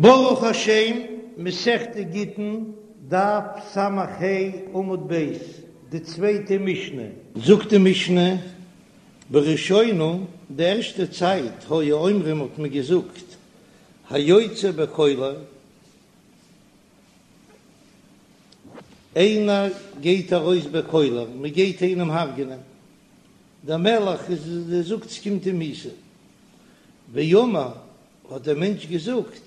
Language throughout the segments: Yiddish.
ברוך השם, מסכת גיטין, דף ס"ה עמוד ב', די צווייטע משנה. זאגט די משנה, בראשונה, די ערשטע צייט, היו אומרים האט מען געזאגט, היוצא בקולר, איינער גייט ארויס בקולר, מען גייט איינעם הרג'נען, דער מלך איז זאגט ס'קומט אים מיתה, ואמר האט דער מענטש געזאגט,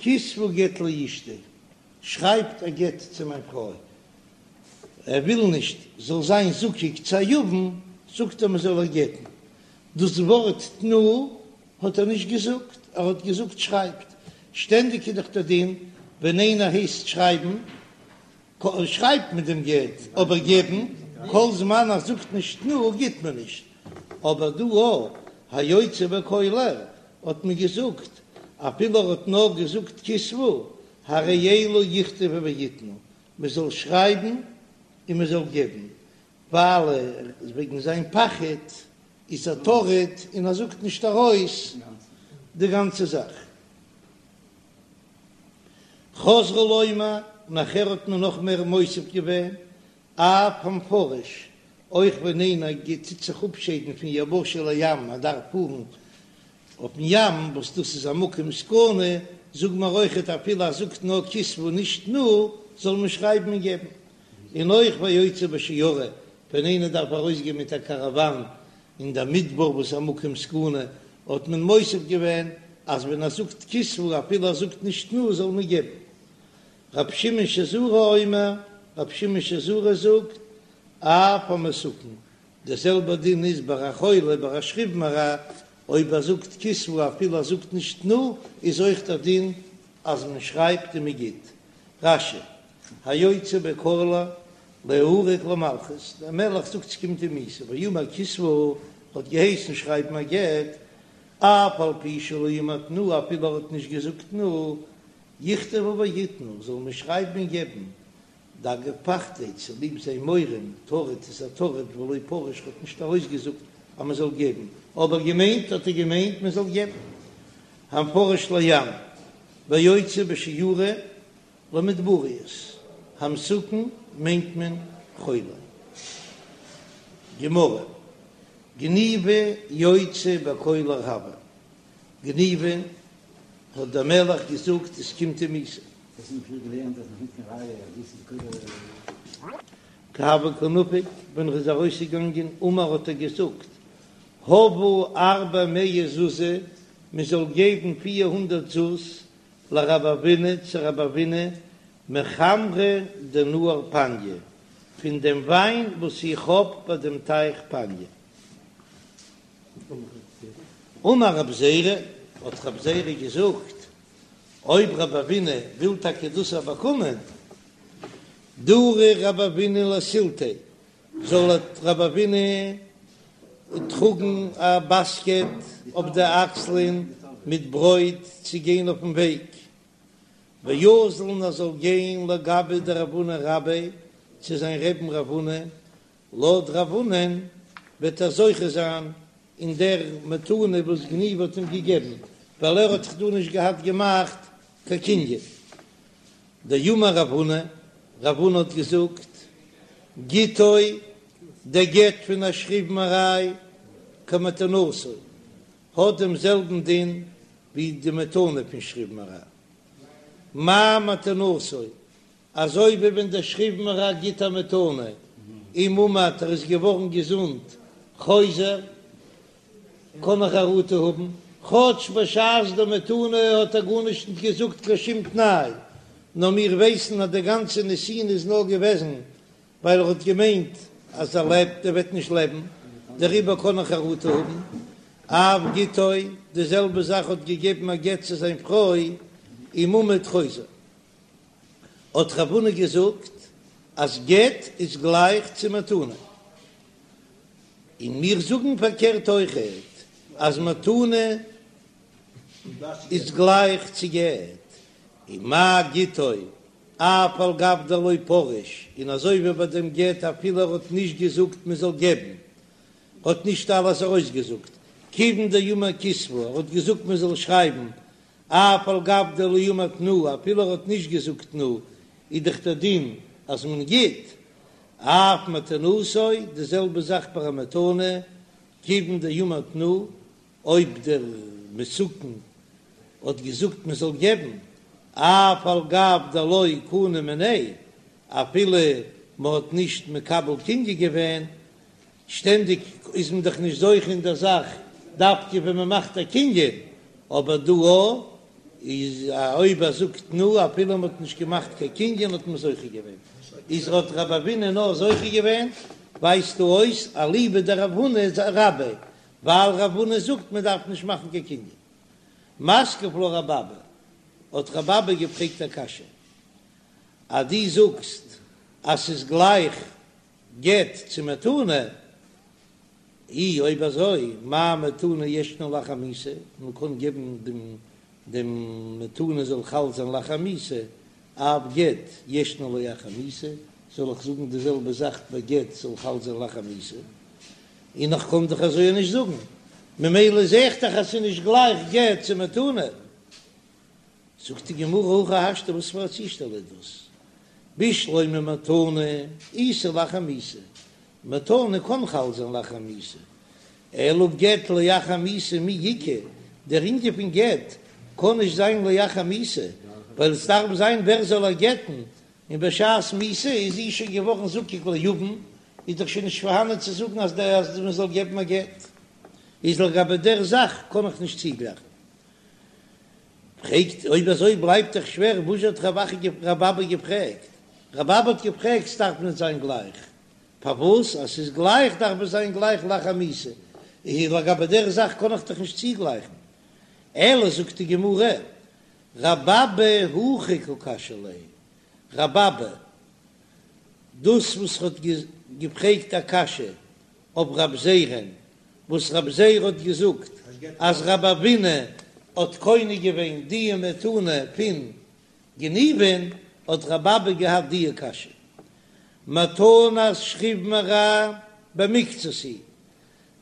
כתבו גט לאשתי, שרייבט א גט צו מיין פרוי, ער וויל נישט זאל זיין זקוק צו א יבם, זאגט ער מען זאל איר גט'ן, דאס ווארט תנו האט ער נישט געזאגט, ער האט געזאגט שרייבט, שטענדיג איז דאך דער דין ווען איינער הייסט שרייבן, שרייבט מען דעם גט, אבער געבן, כל זמן ער זאגט נישט תנו גיט מען נישט, אבער דא א היוצא בקולר האט מען געזאגט, אפילו ער האט נאר געזאגט כתבו, הרי אלו יכתבו ויתנו, מען זאל שרייבן און מען זאל געבן, ווייל ער וועגן זיין פחד איז ער טרוד און ער זאגט נישט ארויס די גאנצע זאך. חזרו לומר, נאכער האט מען נאך מער מוסיף געווען, אף המפרש, אויך ווען איינער גייט טוט זיך אפשיידן פון יבשה לים, ער דארף פארן אויפן ים, וואס דאס איז א מקום סכנה, זאג מיר אויכעט אפילו ער זאגט נאר כתבו נישט תנו, זאל מען שרייבן און געבן. און אויך והיוצא בשיירא, ווען איינער דארף ארויסגיין מיט א קאראוואן אין דער מדבר וואס איז א מקום סכנה, האט מען מוסיף געווען אז ווען ער זאגט כתבו אפילו ער זאגט נישט תנו זאל מען געבן. רבי שמעון שזורי אומר, רבי שמעון שזורי זאגט, אף המסוכן, דער זעלבער דין איז ביי א חולה ביי א שכיב מרע, אויב ער זאגט כתבו אפילו ער זאגט נישט תנו, איז אויך דער דין אז מען שרייבט און מען גיט. רש"י, היוצא בקולר ליהרג למלכות, דער מלך זאגט ס'קומט אים מיתה, ואמר כתבו האט געהייסן שרייבן א גט, אף על פי שלא אמר תנו אפילו ער האט נישט געזאגט תנו, יכתבו ויתנו, זאל מען שרייבן און געבן, דאגב פחדיה צוליב זיין מורא, טרוד איז ער טרוד ולא פריש האט נישט ארויסגעזאגט אז מען זאל געבן, אבער געמיינט האט ער געמיינט מען זאל געבן. המפרש לים, והיוצא בשיירא למדבריות, המסוכן מיינט מען חולה. גמרא, גניבא יוצא בקולר הוה, גניבא האט דער מלך געזאגט עס קומט אים מיתה. כי הוה קא נפיק, ווען ער איז ארויסגעגאנגען אמר האט ער געזאגט הבו ארבע מאה זוזי, מען זאל געבן 400 זוז לרב אבינא צו רב אבינא מחמרא דנהר פניא, פון דעם וויין וואס איך האב ביי דעם טייך פניא. אמר רב זירא, האט רב זירא געזאגט, אויב רב אבינא וויל טאקע דאס באקומען, דרי רב אבינא לסילתיה, זאל רב אבינא טראגן א באסקעט אויף די אקסלען מיט ברויט צו גיין אויפן וועג, ואזיל און ער זאל גיין לגביה דרב הונא רביה צו זיין רעבן רב הונא, לויט רב הונא'ן וועט ער זוכה זיין אין דער מתנה וואס גניבא האט אים געגעבן, ווייל ער האט זיך דא נישט געהאט געמאכט קיין קנין. דאמר רב הונא, רב הונא האט געזאגט, גיטו, דער גט פון א שכיב מרע כמתנתו, האט דעם זעלבן דין ווי די מתנה פון שכיב מרע. מה מתנתו, אזוי ווי ווען דער שכיב מרע גיט א מתנה, אם עמד ער איז געווארן געזונט, חוזר, קען ער חרטה האבן, כאטש בשעת די מתנה האט ער גארנישט נישט געזאגט קיין שום תנאי, נאר מיר ווייסן אז די גאנצע נתינה איז נאר געוועזן ווייל ער האט געמיינט אז ער לעבט, ער וועט נישט לעבן, דעריבער קען ער חרטה האבן. אף גיטו, די זעלבע זאך האט געגעבן א גט צו זיין פרוי, אם עמד חוזר. האט רב הונא געזאגט אז גט איז גלייך צו מתנה, און מיר זאגן פארקערט אויכעט אז מתנה איז גלייך צו גט, און מה גיטו אף על גב דלא פריש, און אזוי ווי ביי דעם גט אפילו ער האט נישט געזאגט מען זאל געבן, האט נישט אלעס ארויסגעזאגט, כיוון דאמר כתבו, ער האט געזאגט מען זאל שרייבן. אף על גב דלא אמר תנו, אפילו ער האט נישט געזאגט תנו, איז דאך דער דין אז מען גיט, אף מתנתו, די זעלבע זאך ביי א מתנה, כיוון דאמר תנו, אויב דער מסוכן האט געזאגט מען זאל געבן, אף על גב דלא קנו מיניה, אפילו מען האט נישט מקבל קנין געווען, שטענדיג איז מען דאך נישט זוכה אין דער זאך דווקא ווען מען מאכט א קנין, אבער דא איז אויב ער זאגט תנו אפילו מען האט נישט געמאכט קיין קנין האט מען זוכה געווען, איז האט רב אבינא נאר זוכה געווען, ווייזט דא אויס אליבא דרב הונא רביה, ווייל רב הונא זאגט מען דארף נישט מאכן קיין קנין. מתקיף לה רב אבא, האט רב אבא געפרעגט א קשיא, אז דו זאגסט אז ס'איז גלייך גט צו מתנה, אי אויב אזוי מה מתנה ישנה לאחר מיתה, מען קען געבן דעם דעם מתנה זאל חל זיין לאחר מיתה, אף גט ישנו לאחר מיתה, זאל איך זאגן די זעלבע זאך ביי גט זאל חל זיין לאחר מיתה, און איך קען דאך אזוי נישט זאגן, ממילא זע איך דאך אז ס'איז נישט גלייך גט צו מתנה. זאגט די גמרא הכי השתא וואס פאר א צושטעל איז דאס? בשלמא מתנה איתא לאחר מיתה, מתנה קען חל זיין לאחר מיתה, אלא גט לאחר מיתה מי איכא, דער ענין פון גט קען נישט זיין לאחר מיתה, ווייל עס דארף זיין ווער זאל איר גט'ן, און בשעת מיתה איז זי שוין געווארן זקוק ליבם, איז דאך שוין נישט פארהאנען צו זאגן אז מען זאל געבן א גט, איז לגבי דער זאך קען איך נישט צוגלייכן. פרעגט, אויב אזוי בלייבט דאך שווער, וואס האט רב אבא געפרעגט? רב אבא האט געפרעגט, ס'דארף נישט זיין גלייך, פארוואס אז ס'איז גלייך דארף עס זיין גלייך לאחר מיתה, איז לגבי דער זאך קען איך דאך נישט צוגלייכן, אלא זאגט די גמרא, רב אבא הכי קא קשיא ליה, רב אבא, דאס וואס האט געפרעגט א קשיא אויף רב זירא'ן, וואס רב זירא האט געזאגט אז רב אבינא האט קונה געווען די מתנה פון גניבין, האט רב אבא געהאט די קשיא, מתנת שכיב מרע במקצת היא,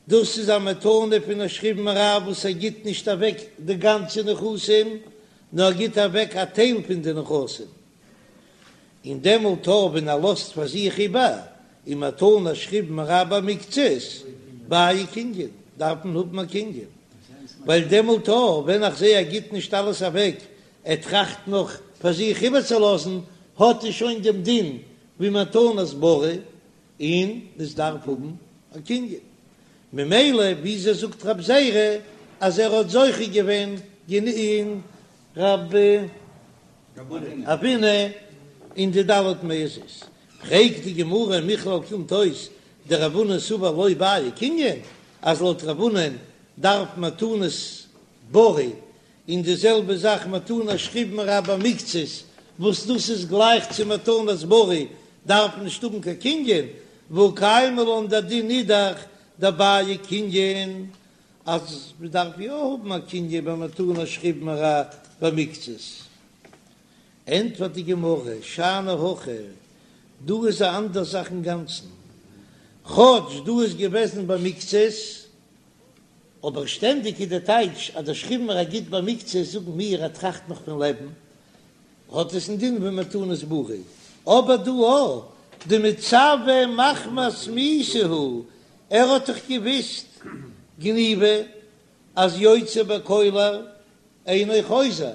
דאס איז א מתנה פון א שכיב מרע וואס ער גיט נישט אוועק די גאנצע נכסים, נאר ער גיט אוועק א טייל פון די נכסים, און דעמאלט אויב ווען ער לאזט פאר זיך איבער און מתנת שכיב מרע במקצת בעי קנין, דארף מען האבן א קנין, ווייל דעמאלט אויב ווען איך זעה ער גיט נישט אלעס אוועק, ער טראכט נאך פאר זיך איבערצולאזן, האט ער שוין דעם דין ווי מתנת בריא, און עס דארף האבן א קנין. ממילא וויאזוי זאגט רב זירא אז ער האט זוכה געווען אין רב אבינא אין די ד' מאות זוז? פרעגט די גמרא מכלל קומט אויס דרב הונא סבר לא בעי קנין אז לויט רב הונא'ן דארף מתנת בריא און די זעלבע זאך מתנת שכיב מרע במקצת, וואס דאס איז גלייך צו מתנת בריא, דארף מען נישט האבן קיין קנין, והא קיימא לן דער דין איז דאך דבעי קנין, אז מען דארף יא האבן א קנין ביי מתנת שכיב מרע במקצת. ענטפערט די גמרא, שאני הכא, דא איז א אנדער זאך אינגאנצן, כאטש דא איז געוועזן במקצת, אבער שטענדיג איז די טייטש אז דער שכיב מרע גיט במקצת, זאגן מיר ער טראכט נאך פון לעבן, האט עס א דין ווי מתנת בריא, אבער דא א דמצוה מחמת מיתה הוא, ער האט דאך געוויסט גניבא אז יוצא בקולר אינו חוזר,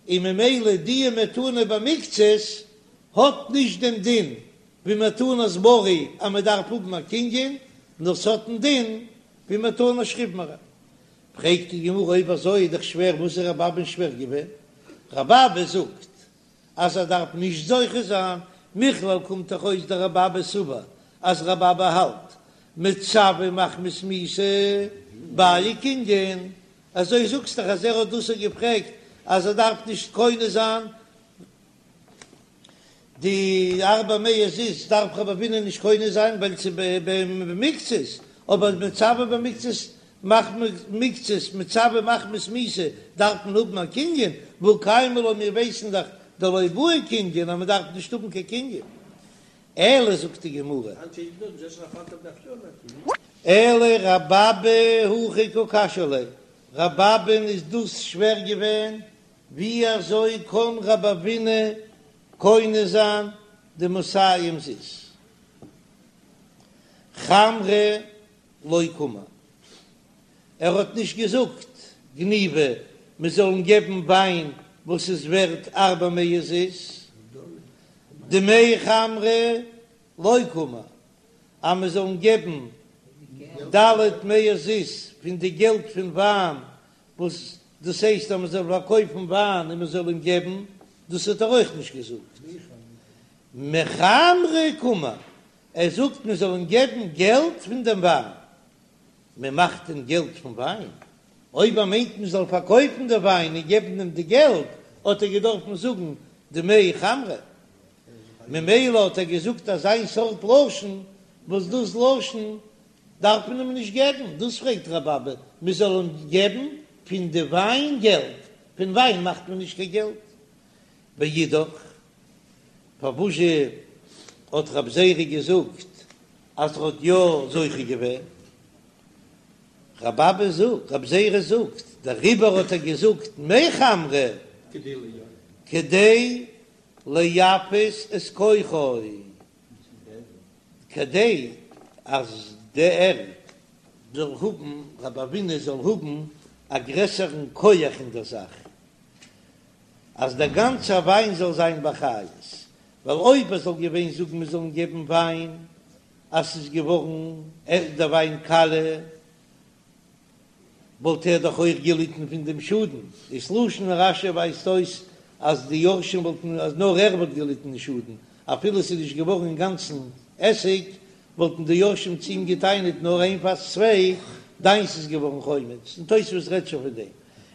און ממילא די מתנה במקצת האט נישט דעם דין ווי מתנת בריא אז מען דארף האבן א קנין, נאר ס'האט א דין ווי מתנת שכיב מרע. פרעגט די גמרא אויב אזוי איז דאך שווער וואס איז רב אבא'ן שווער געווען? רב אבא זאגט אז ער דארף נישט זוכה זיין, מכלל קומט דאך אויס דרב אבא סבר אז רב אבא האלט מצוה מחמת מיתה בעי קנין, אזוי זאגסט דאך אז ער האט דאס געפרעגט אז ער דארף נישט קונה זיין די ארבע מאות זוז דארף רב אבינא נישט קונה זיין ווייל ס'איז במקצת, אבער מצוה במקצת מחמת מקצת מצוה מחמת מיתה דארף מען האבן א קנין, והא קיימא לן מיר ווייסן דאך דלא בעי קנין אז מען דארף נישט האבן קיין קנין. אלא זאגט די גמרא. אלא רב אבא הכי קא קשיא ליה, רב אבא'ן איז דאס שווער געווען. ווי אזוי קען רב אבינא קונה זיין די מאתים זוז? חמרא לא קאמר, ער האט נישט געזאגט גניבא מען זאל אים געבן וויין וואס איז ווערט ארבע מאות זוז, דמי חמרא לא קאמר, אז מען זאל אים געבן ד' מאות זוז פון די געלט פון וויין וואס דאס הייסט אז מען זאל פארקויפן וויין און מען זאל אים געבן, דאס האט ער אויך נישט געזאגט. מחמרא קאמר, ער זאגט מען זאל אים געבן געלט פון דעם וויין. מען מאכט דען געלט פון וויין? אויב ער מיינט מען זאל פארקויפן די וויין און געבן אים די געלט, האט ער געדארפן זאגן דמי חמרא. ממילא האט ער געזאגט אזיין סארט לשון, וואס דאס לשון דארף מען אים נישט געבן, דאס פרעגט רבי אבא, מען זאל אים געבן פון די וויין געלט, פון וויין מאכט מען נישט קיין געלט. ואידך, פארוואזשע האט רב זירא געזאגט אז ער האט יא זוכה געווען? רבי אבא זאגט, רב זירא זאגט, דעריבער האט ער געזאגט מחמרא כדי ליפות את כוחו, כדי אז דער זאל האבן, רב אבינא זאל האבן א גרעסערן כח אין דער זאך, אז דער גאנצער וויין זאל זיין באחריות, ווייל אויב ער זאל געווען זאגן מיר זאלן געבן וויין אז ס'איז געווארן דער וויין קאליע, וואלט ער דאך אויך געליטן פון דעם שאדן, דאס לשון רש"י ווייזט אויס אז די יורשים וואלטן אז נאר ער וואלט געליטן די שאדן, אפילו ס'איז נישט געווארן אינגאנצן עסיג, וואלטן די יורשים צו אים געטענה'ט נאר איין פאס צוויי, דיינס איז געווארן חומץ, און תוספות רעדט שוין פון דעם,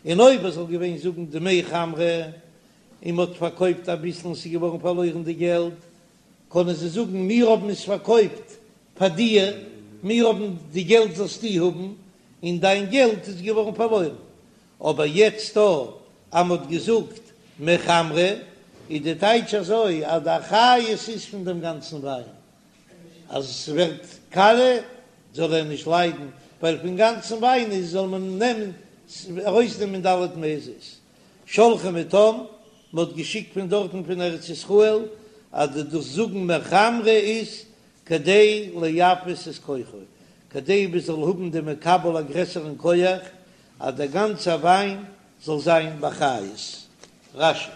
און אויב ער זאל געווען זאגן דמי חמרא און מ'האט פארקויפט אביסל און ס'איז געווארן פארלוירן די געלט, קענען זיי זאגן מיר האבן עס פארקויפט פאר דיר, מיר האבן די געלט זאלסטו האבן, און דיין געלט איז געווארן פארלוירן. אבער יעצט דא אז מ'האט געזאגט מחמרא, איז די טייטש אזוי אז די אחריות איז פון דעם גאנצן וויין, אז עס ווערט קאליע זאל ער נישט ליידן, ווייל פון גאנצן וויין איז זאל מען נעמען ארויסנעמען ד' מאות זוז. שלחו מתם, מען האט געשיקט פון דארטן פון ארץ ישראל, אז די דאס זאגן מחמרא איז כדי ליפות את כוחו, כדי מען זאל האבן די מקבל א גרעסערן כח, אז דער גאנצער וויין זאל זיין באחריות. רש"י.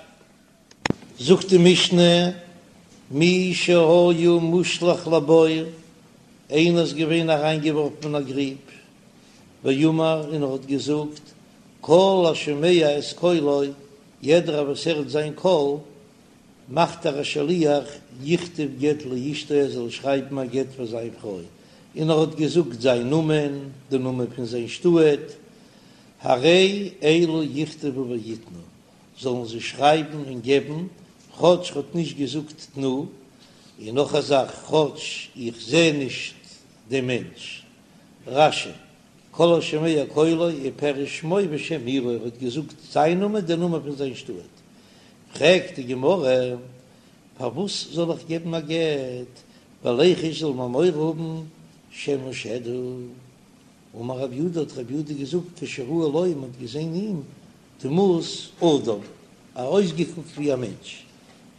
זאגט די משנה, מי שהיה מושלך לבור, איינער איז געווען אריינגעווארפן אין א גריב, ואמר און ער האט געזאגט, כל השומע את קולו, יעדער וואס הערט זיין קול, מאכט ער א שליח, יכתוב גט לאשתו ער זאל שרייבן א גט פאר זיין פרוי, און ער האט געזאגט זיין נאמען, די נאמען פון זיין שטאט, הרי אלו יכתבו ויתנו, זאלן זיי שרייבן און געבן, כאטש ר'האט נישט געזאגט תנו, און נאך א זאך, כאטש איך זע נישט דעם מענטש. רש"י, כל השומע קולו ופירש שמו ושם עירו, ער האט געזאגט זיין נאמען, דער נאמען פון זיין שטאט. פרעגט די גמרא, פארוואס זאל איך געבן א גט, וליחוש זאל מען מורא האבן שמא שד הוא. אמר רב יהודה, האט רב יהודה געזאגט, כשראו לו, מען האט געזען אים, דמות אדם, אויסגעקוקט ווי א מענטש.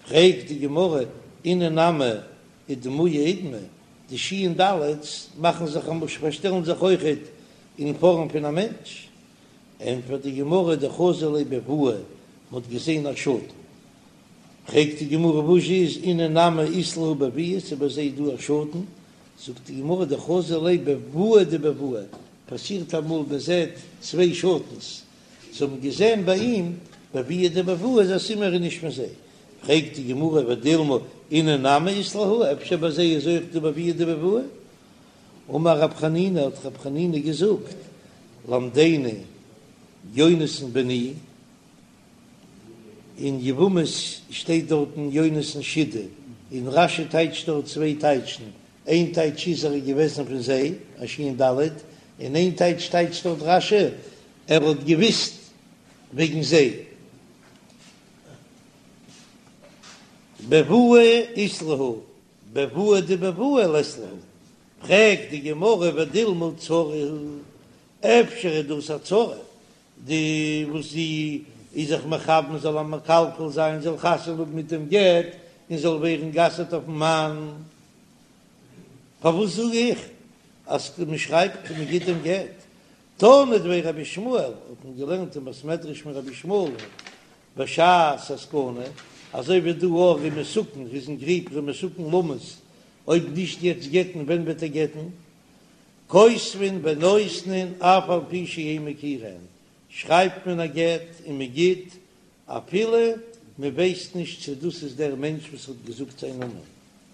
פרעגט די גמרא, אינהו נמי אידמויי אידמו, די שין דלת'ס מאכן זיך א משל פארשטעלן זיך אויכעט אין פארעם פון א מענטש. ענטפערט די גמרא, דחזו ליה בבואה, מען האט געזען א שאטן. פרעגט די גמרא, וואס איז אינהו נמי אית להו בביהא, ס'איז ביי זיי דא א שאטן? זאגט די גמרא, דחזו ליה בבואה דבבואה, פאסירט אמאל מען זעט צוויי שאטנס, זיי האבן געזען ביי אים בבואה דבבואה איז א סימן ער איז נישט פון זיי, פרעגט די גמרא ודילמא אינהו נמי אית להו, אפשר ביי זיי איז אויך דא בבואה דבבואה? אמר רב חנינא האט רב חנינא געזאגט, למדני יונתן בני, אין יבמות שטייט דארטן יונתן שידא, און רש"י טייטשט דארט צוויי טייטשן, איין טייטש איז ער איז געוועזן פון זיי, א שין ד', און איין טייטש טייטשט דארט רש"י ער האט געוויסט וועגן זיי. בבואה אית להו, בבואה דבבואה לית להו, פרעגט די גמרא ודילמא צרה היא, אפשר איז דאס א צרה, די וואס די. איז זיך מכוון זאל איר מקלקל זיין, זאל חתונה האבן מיט דעם גט און זאל ווערן גע'אסר'ט אויפן מאן. פארוואס זאג איך אז מען שרייבט און מען גיט דעם גט? תנא דבי רבי ישמעאל, האט מען געלערנט אין בית מדרש פון רבי ישמעאל בשעת הסכנה, אזוי ווי דא אויך ער איז מסוכן, ער איז אין גריב, ער איז מסוכן למות, אויב נישט יעצט גט'ן ווען וועט ער גט'ן? כותבין ונותנין אף על פי שאין מכירין, שרייבט מען א גט און מען גיט אפילו מען ווייסט נישט צו דאס איז דער מענטש וואס האט געזאגט זיין נאמען.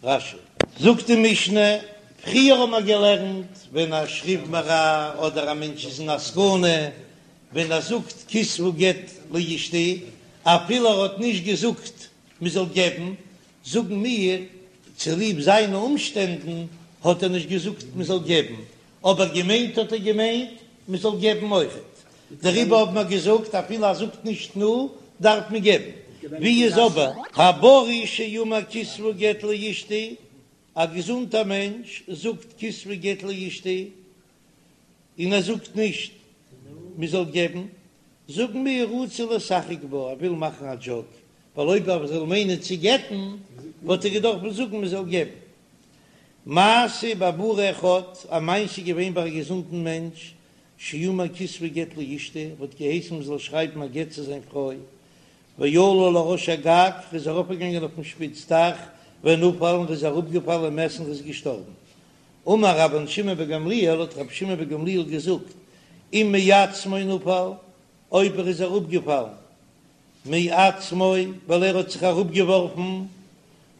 רש"י. זאגט די משנה, פריער האט מען געלערנט ווען א שכיב מרע אדער א מענטש איז אין א סכנה, ווען ער זאגט כתבו גט לאשתי, אפילו ער האט נישט געזאגט מען זאל געבן, זאגן מיר, צוליב זיינע אומשטענדן האט ער נישט געזאגט מען זאל געבן, אבער געמיינט האט ער געמיינט מען זאל געבן אויכעט, דעריבער האבן מיר געזאגט אפילו ער זאגט נישט תנו דארף מען געבן, ווי איז אבער הבריא שאמר כתבו גט לאשתי, א געזונטער מענטש זאגט כתבו גט לאשתי און ער זאגט נישט מען זאל געבן, זאגן מיר רצה לשחק בה, ער וויל מאכן א דזשאוק, ווייל אויב ער זאל מיינען צו גט'ן וואלט ער געדארפט זאגן מען זאל געבן. מעשה בבריא אחד, א מעשה איז געווען ביי א געזונטן מענטש, שאמר כתבו גט לאשתי, האט געהייסן מען זאל שרייבן א גט צו זיין פרוי, ועלה לראש הגג, ער איז ארויפגעגאנגען אויפן שפיץ דאך, ונפל, און ער איז אראפגעפאלן ומת און ער איז געשטארבן. אמר רבן שמעון בן גמליאל, האט רבי שמעון בן גמליאל געזאגט, אם מעצמו נפל, אויב ער איז אראפגעפאלן מעצמו ווייל ער האט זיך אראפגעווארפן,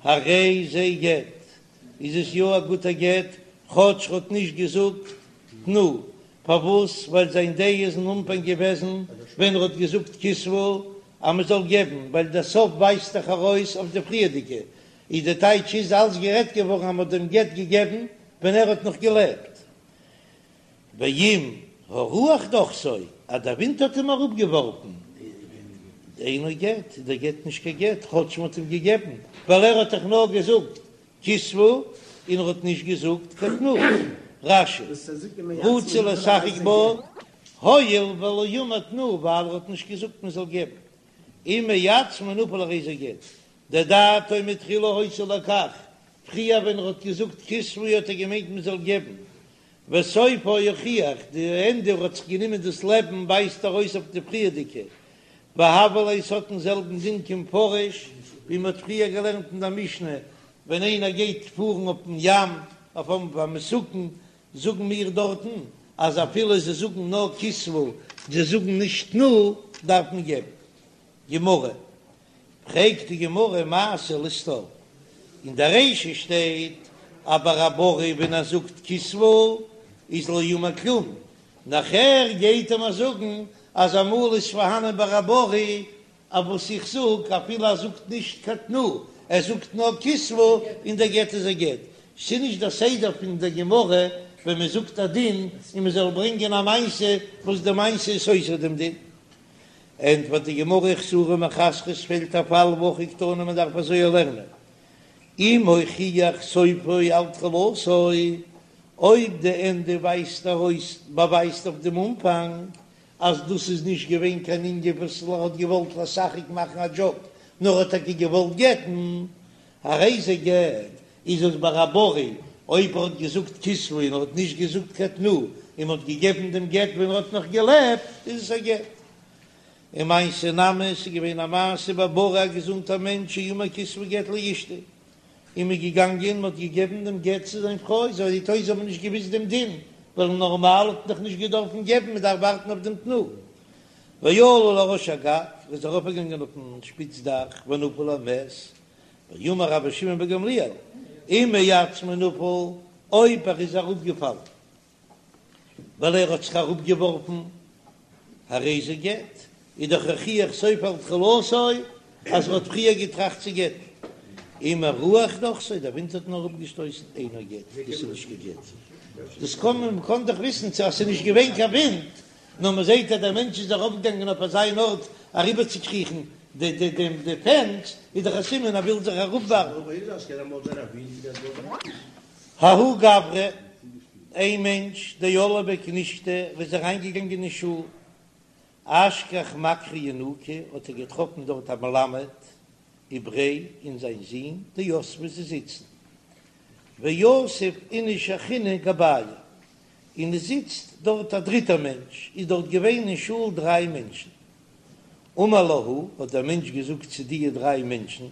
הרי זה גט, איז עס יא א גוטע גט, כאטש ר'האט נישט געזאגט תנו, פארוואס? ווייל זיין דעה איז אין אנפאנג געוועזן ווען ר'האט געזאגט כתבו אז מ'זאל געבן, ווייל דער סוף ווייזט דאך ארויס אויף די פריערדיגע, איז די טייטש איז אלץ גערעדט געווארן אז מ'האט דעם גט געגעבן ווען ער האט נאך געלעבט. ואם הרוח דחתו, אז דער ווינט האט אים אראפגעווארפן, אינו גט, איז דער גט נישט קיין גט, כאטש מ'האט אים געגעבן, ווייל ער האט דאך נאר געזאגט כתבו, און ער האט נישט געזאגט קיין תנו. רש"י, רצה לשחק בה, הואיל ולא אמר תנו, ווייל ער האט נישט געזאגט מען זאל געבן. אם מעצמו נפל הרי זה גט, דדעתו מתחילה היתה לכך, פריער ווען ער האט געזאגט כתבו האט ער געמיינט מען זאל געבן, וסופו הוכיח, די ענדע ער האט זיך גענומען דאס לעבן ווייזט ארויס אויף די פריערדיגע, והוה ליה ס'האט דעם זעלבן דין כמפרש ווי מ'האט פריער געלערנט אין דער משנה, ווען איינער גייט פארן אויפן ים אויף א מסוכן, זאגן מיר דארטן אז אפילו זיי זאגן נאר כתבו, זיי זאגן נישט תנו, דארף מען געבן. גמרא, פרעגט די גמרא מעשה לסתור, אין די רישא שטייט אז ביי א בריא ווען ער זאגט כתבו איז לא אמר כלום, נאכער גייט ער מיר זאגן אז אמאל איז פארהאנען ביי א בריא אז וואס איך זאג אפילו ער זאגט נישט קיין תנו ער זאגט נאר כתבו און דער גט איז א גט, ס'איז נישט דער סדר פון דער גמרא ווען מען זאגט א דין און מען זאל ברענגען א מעשה וואס די מעשה איז סותר דעם דין. ענטפערט די גמרא חסורי מחסרא עס פעלט א פאל והכי קתני מען דארף אזוי לערנען אם הוכיח סופו על תחילתו אויב די ענדע ווייזט ארויס באווייזט אויף דעם אנפאנג אז דאס איז נישט געווען קיין ענין וואס ער האט געוואלט לשחק מאכן א דזשאוק נאר האט טאקע געוואלט גט'ן הרי זה גט איז עס ביי א בריא אויב ער האט געזאגט כתבו און ער האט נישט געזאגט קיין תנו און מ'האט געגעבן דעם גט ווען ער האט נאך געלעבט איז עס א גט. ומעשה נמי ס'איז געווען א מעשה בבריא א געזונטער מענטש שאמר כתבו גט לאשתי און מ'איז געגאנגען מ'האט געגעבן דעם גט צו זיין פרוי זעהט אויס זיי האבן נישט געוויסט דעם דין ווייל נארמאל האט מען דאך נישט געדארפן געבן מ'דארף ווארטן אויף דעם תנו ועלה לראש הגג ער איז ארויפגעגאנגען אויפן שפיץ דאך ונפל ומת ואמר רבי שמעון בן גמליאל, אם מעצמו נפל, אויב ער איז אראפגעפאלן ווייל ער האט זיך אראפגעווארפן, הרי זה גט, איז דאך הוכיח סופו על תחילתו אז ער האט פריער געטראכט צו גט'ן. אם הרוח דחתו, דער ווינט האט אים אראפגעשטויסן, אינו גט, דאס איז נישט קיין גט. דאס קען מען, מ'קען דאך וויסן צו אז ס'איז נישט געווען קיין ווינט, נאר מען זעט אז דער מענטש איז ארויפגעגאנגען אויף אזא ארט אריבערצוקריכן די די די די פענס, איז דאך א סימן ער וויל זיך אראפווארפן. ההוא גברא, איין מענטש, דעל לבי כנישתא, וואס איז אריינגעגאנגען אין שול. אשכח מקרי ינוקא האט ער געטראפן דארט א מלמד ובריה און זיין זון דיתבי זיי זיצן ויתיב איניש אחרינא גבייהו און עס זיצט דארט א דריטער מענטש, איז דארט געווען אין שול דריי מענטשן. אמר להו, האט דער מענטש געזאגט צו דיע דריי מענטשן,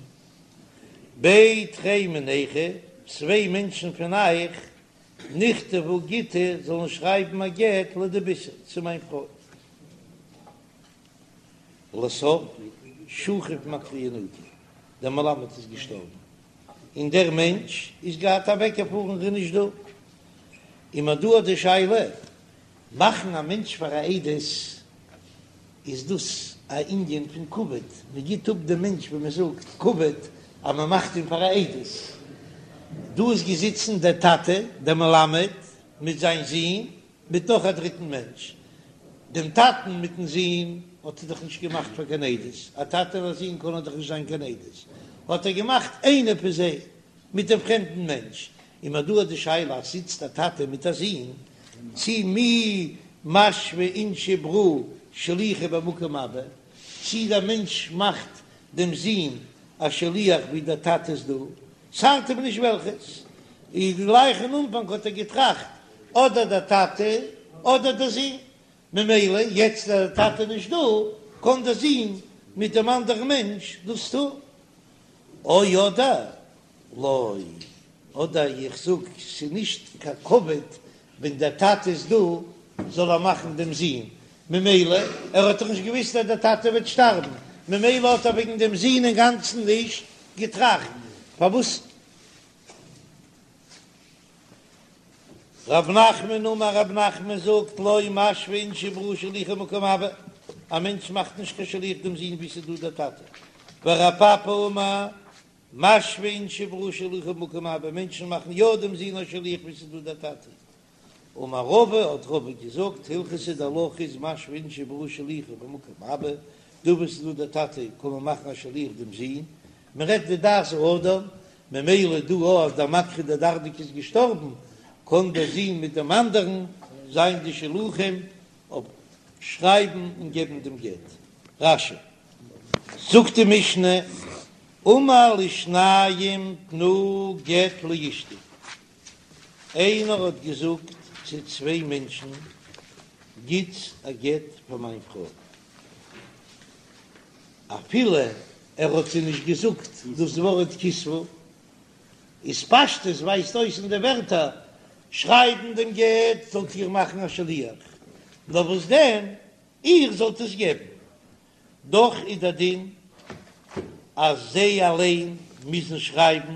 בי תרי מינייכו, צוויי מענטשן פון אייך, נכתבו גיטא, זאלן שרייבן א גט לדביתהי, צו מיין פרוי. לסוף, שכיב מקרי ינוקא, דער מלמד איז געשטארבן, און דער מענטש איז געהאט אוועקגעפארן, איז נישט דא. און מ'האט דא די שאלה, מאכן א מענטש פאר א עדות, איז דאס א ענין פון כבוד, מען גיט אפ דעם מענטש ווי מען זאגט כבוד אז מען מאכט אים פאר א עדות. דא איז געזיצן דער טאטע דער מלמד מיט זיין זון מיט נאך א דריטן מענטש, דעם טאטן מיטן זון האט ער דאך נישט געמאכט פאר קיין עדות, א טאטע און א זון קענען דאך נישט זיין קיין עדות, האט ער געמאכט איינער פון זיי מיט דעם פרעמדן מענטש, און מ'האט דא די שאלה אז זיצט א טאטע מיט א זון, צי מי משוי אינשי ברא שליחא במקום אבא, צי דער מענטש מאכט דעם זון א שליח ווי דער טאטע איז דא, ס'ארט אים נישט וועלכעס, איז גלייך אין אנפאנג האט ער געטראכט אדער דער טאטע אדער דער זון, ממילא יעצט אז דער טאטע איז נישט דא קען דער זון מיט דעם אנדערן מענטש דאס טון. או אדער לא, אדער איך זאג ס'איז נישט קיין כבוד ווען דער טאטע איז דא זאל ער מאכן דעם זון, ממילא ער האט דאך נישט געוויסט אז דער טאטע וועט שטארבן, ממילא האט ער וועגן דעם זון אינגאנצן נישט געטראכט, פארוואס רב נחמן אמר רב נחמן זאגט לא משוו אינשי ברא שליחא במקום אבא, א מענטש מאכט נישט קיין שליח דעם זון ווי ס'איז דא דער טאטע, ורב פפא אמר משוו אינשי ברא שליחא במקום אבא, מענטשן מאכן יא דעם זון א שליח ווי ס'איז דא דער טאטע. אמר רבא, האט רבא געזאגט, הלכתא די הלכה איז משוו אינשי ברא שליחא במקום אבא, דא וואו ס'איז דא דער טאטע קען מען מאכן א שליח דעם זון, מען רעדט די דעת האדם, ממילא דא אז דער מקרי דרדקי איז געשטארבן, קען דער זון מיט דעם אנדערן זיין די שלוחים אויף שרייבן און געבן דעם גט. רש"י זאגט די משנה, אמר לשניים תנו גט לאשתי, איינער האט געזאגט צו צוויי מענטשן, גיטס א גט פאר מיין פרוי, אפילו ער האט זיי נישט געזאגט דאס ווארט כתבו, איז פשטות ווייזט אויס אין די ווערטער, שרייבן דעם גט זאלט איר מאכן א שליח, נאר וואס דען איר זאלט עס געבן, דאך איז דער דין אז זיי אליין מוזן שרייבן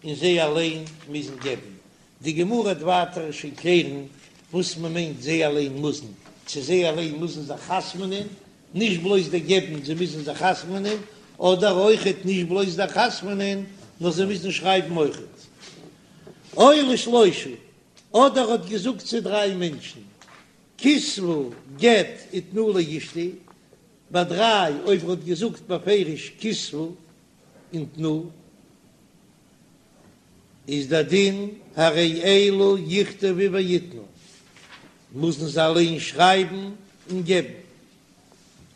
און זיי אליין מוזן געבן, די גמרא וועט ווייטער שוין קלערן וואס מען מיינט זיי אליין מוזן, צו זיי אליין מוזן זיך חתמ'נען, נישט בלויז די געבן, זיי מוזן זיך חתמ'נען, אדער אויכעט נישט בלויז די חתמ'נען, נאר זיי מוזן שרייבן אויכעט. או לשלושה, אדער האט געזאגט צו דריי מענטשן, כתבו גט ותנו לאשתי, ביי דריי אויב ער האט געזאגט בפירוש כתבו און תנו, איז דער דין הרי אלו יכתבו ויתנו, מוזן זיי אליין שרייבן און געבן.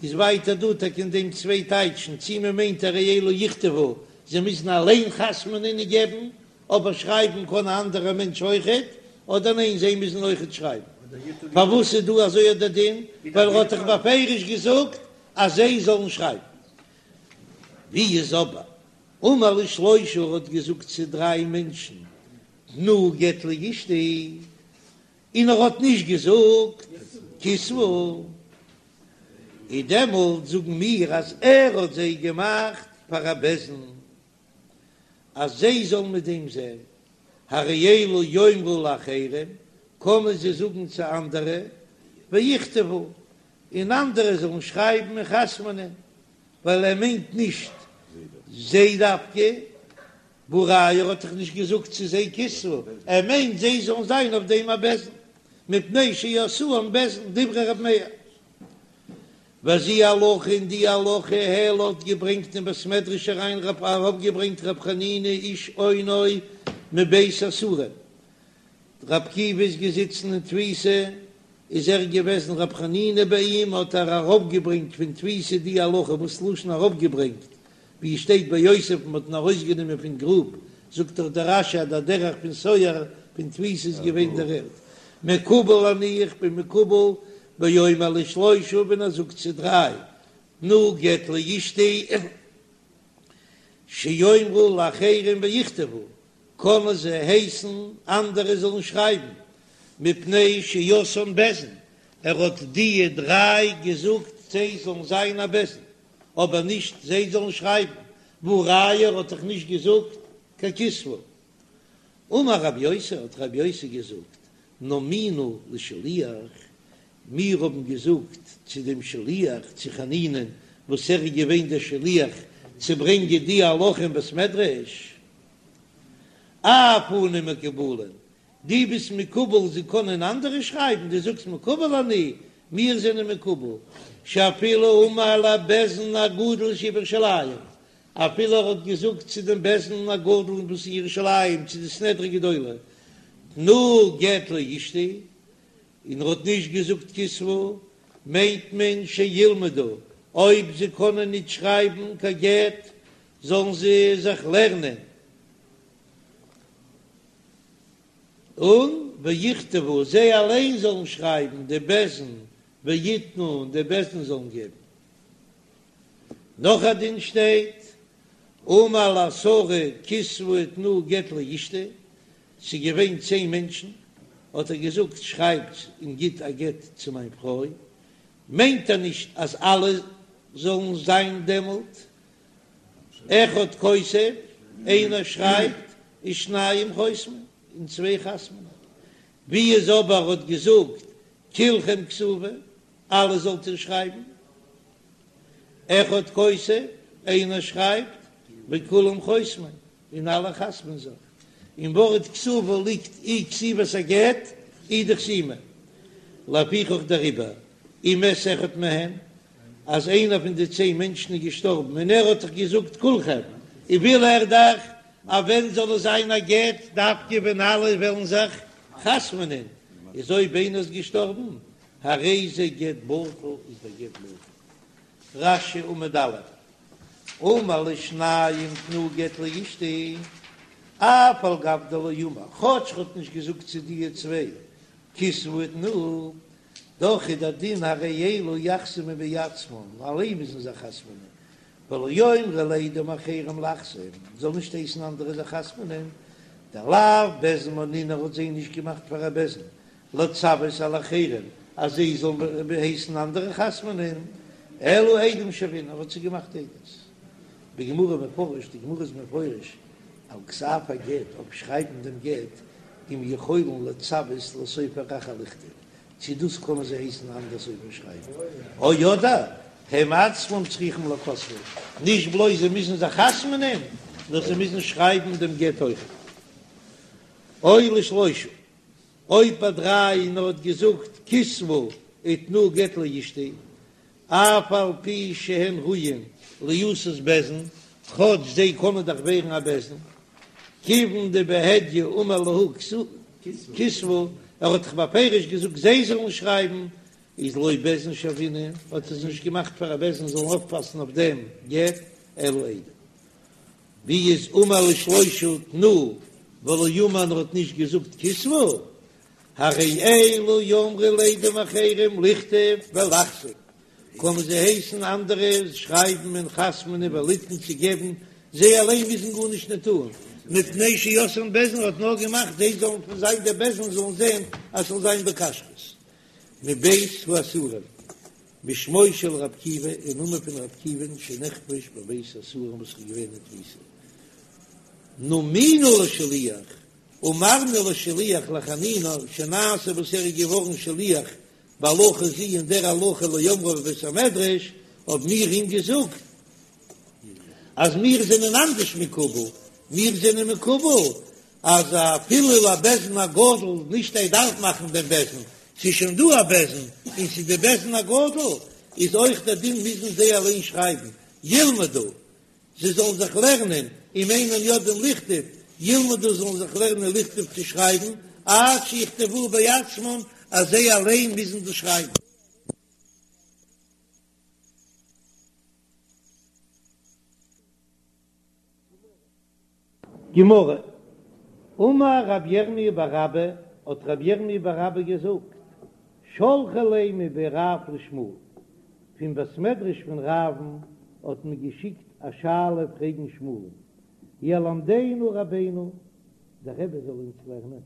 איז ווייטער דא טאקע אין דעם צוויי טייטשן, צי מען מיינט הרי אלו יכתבו, זיי מוזן אליין חתמ'נען און געבן, אבער שרייבן קען א אנדערער מענטש אויכעט, אדער ניין זיי מוזן אויכעט שרייבן. פארוואס איז דא אזוי דער דין? ווייל ער האט דאך בפירוש געזאגט אז זיי זאלן שרייבן. ווי איז אבער אמר לשלושה ער האט געזאגט צו דריי מענטשן תנו גט לאשתי, און ער האט נישט געזאגט כתבו, איז דעמאלט זאגן מיר אז ער האט זיי געמאכט פאר א בית דין אז זיי זאלן מיט דעם זען, הרי אלו יאמרו לאחרים, קענען זיי זאגן צו אנדערע, ויכתבו, און אנדערע זאלן שרייבן און חתמ'נען, ווייל ער מיינט נישט זיי דווקא, והא ראיה ער האט דאך נישט געזאגט צו זיי כתבו, ער מיינט זיי זאלן זיין אויף דעם א בית דין, מפני שעשאום בית דין, דברי ר' מאיר. וזו הלכה און די הלכה העלה האט געברענגט אין בית מדרש אריין רב אראפגעברענגט רב חנינא איש אונו מבית האסורין, ר' עקיבא איז געזיצן אין תפיסה. איז ער געוועזן רב חנינא ביי אים האט ער אראפגעברענגט פון תפיסה די הלכה וואס לשון אראפגעברענגט ווי עס שטייט ביי יוסף מען האט אים ארויסגענומען פון גרוב זאגט דאך דער רש"י אז דער דרך פון סוהר פון תפיסה איז געווען דער ערד מקובל אני איך בין מקובל באומר לשלושה ווען ער זאגט צו דריי תנו גט לאשתי שיאמרו לאחרים ויכתבו קענען זיי הייסן אנדערע זאלן שרייבן, מפני שעשאן בית דין, ער האט דיע דריי געזאגט זיי זאלן זיין א בית דין, אבער נישט זיי זאלן שרייבן, והא ראיה ער האט דאך נישט געזאגט קיין כתבו. אמר רב יוסי האט רב יוסי געזאגט, נומינו לשליח, מיר האבן געזאגט צו דעם שליח, צו חנינא'ן, וואס ער איז געווען דער שליח צו ברענגען די הלכה אין בית מדרש, אף אנו מקובלין, דו ביסט מקובל זיי קענען אנדערע שרייבן, דו זאגסט מקובל אני, מיר זענען מקובל, שאפילו אמר לבית דין הגדול שבירושלים, אפילו ער האט געזאגט צו דעם בית דין הגדול וואס אין ירושלים, צו די סנהדרין גדולה, תנו גט לאשתי, און ער האט נישט געזאגט כתבו, מיינט מען שילמדו, אויב זיי קענען ניט שרייבן קיין גט, זאלן זיי זיך לערנען, און ויכתבו, זיי אליין זאלן שרייבן, די בית דין, ויתנו, און די בית דין זאלן געבן. נאך א דין שטייט, אמר לעשרה כתבו ותנו גט לאשתי, ס'איז געווען צען מענטשן, האט ער געזאגט שרייבט און גיט א גט צו מיין פרוי, מיינט ער נישט אז אלע זאלן זיין דעמאלט, אחד כותב, איינער שרייבט, ושניים חותמים, און צוויי חתמ'נען. ווי איז אבער האט געזאגט כולכם כתבו, אלע זאלט איר שרייבן, אחד כותב, איינער שרייבט, וכולם חותמים, און אלע חתמ'ן זיך. אין ווארט כתבו ליגט אי כתיבת הגט אי די חתימה. לפיכך דעריבער, אם מת אחד מהם, אז איינער פון די צען מענטשן איז געשטארבן און ער האט דאך געזאגט כולכם, און וויל ער דאך אז ווען זאל עס זיין א גט דווקא ווען אלע וועלן זיך חתמ'נען, איז אויב איינער איז געשטארבן הרי זה גט בטל איז דער גט בטל. רש"י עמוד א', אמר לשניים תנו גט לאשתי, אף על גב דלא אמר, כאטש ר'האט נישט געזאגט צו דיע צוויי כתבו ותנו, דאך איז דער דין הרי אלו יחתמו בעצמן, אליין מוזן זיי חתמ'נען, ולא יאמרו לעדים אחרים לחתום, זאל נישט הייסן אנדערע זיך חתמ'נען, דלאו בית דין מנינהו ער האט זיי נישט געמאכט פאר א בית דין, לצוות על אחרים אז זיי זאלן הייסן אנדערע חתמ'נען, אלא עדים שוינהו, ער האט זיי געמאכט עדות. בגמרא מפרש, די גמרא איז מפרש על כתב הגט, אויף שרייבן דעם גט, אם יכולין לצוות לסופר אחר לכתוב, צו דאס קענען זיי הייסן אנדערע סופר שרייבן, או אדער הם עצמם צריכים לכותבו, נישט בלויז זיי מוזן זיך חתמ'נען, נאר זיי מוזן שרייבן דעם גט אויך. או לשלושה. אויב ביי דריי און ער האט געזאגט כתבו ותנו גט לאשתי אף על פי שהן ראויין ליעשות בית דין, כאטש זיי קענען דאך ווערן א בית דין, כיוון דבהדיא אמר להו כתבו, ער האט דאך בפירוש געזאגט זיי זאלן שרייבן, איז לא בית דין שוינהו, האט ער זיי נישט געמאכט פאר א בית דין זאלן אויפפאסן אויף דעם גט, אלא עדים. ווי איז אמר לשלושה תנו ולא אמר און ער האט נישט געזאגט כתבו, הרי אלו יאמרו לעדים אחרים לכתוב ולחתום, קענען זיי הייסן אנדערע שרייבן און חתמ'נען וליתן צו געבן, זיי אליין מוזן גארנישט נישט טון, מפני שעשאן בית דין ער האט נאר געמאכט זיי זאלן פון זיין דער בית דין זאלן זען אז ס'זאל זיין בכשרות מבית האסורים. בשמו של ר' עקיבא, אין נאמען פון ר' עקיבא'ן שנחבש בבית האסורים וואס איז געווען אין תפיסה. נומינו לשליח, אמרנו לשליח לחנינא שנעשה וואס ער איז געווארן שליח בהלכה זו אין דער הלכה לאומרה בבית המדרש, האבן מיר אים געזאגט אז מיר זענען אנדערש מקובל, מיר זענען מקובל אז אפילו לבית דין הגדול, נישט ער דארף מאכן דעם בית דין, ס'איז שוין דא א בית דין, און ס'איז די בית דין הגדול, איז אויך דער דין מוזן זיי אליין שרייבן, ילמדו, זיי זאלן זיך לערנען, אם אינם יודעים לכתוב, ילמדו זאלן זיך לערנען לכתוב צו שרייבן, עד שיכתבו בעצמם, אז זיי אליין מוזן דאס שרייבן. גמרא, אמר רב ירמי' בר אבא, האט רב ירמי' בר אבא געזאגט, שלחו ליה מבי רב לשמואל, פון בית מדרש פון רב'ן האט מען געשיקט א שאלה פרעגן שמואל'ן, ילמדנו רבינו, דער רבי זאל אונז לערנען.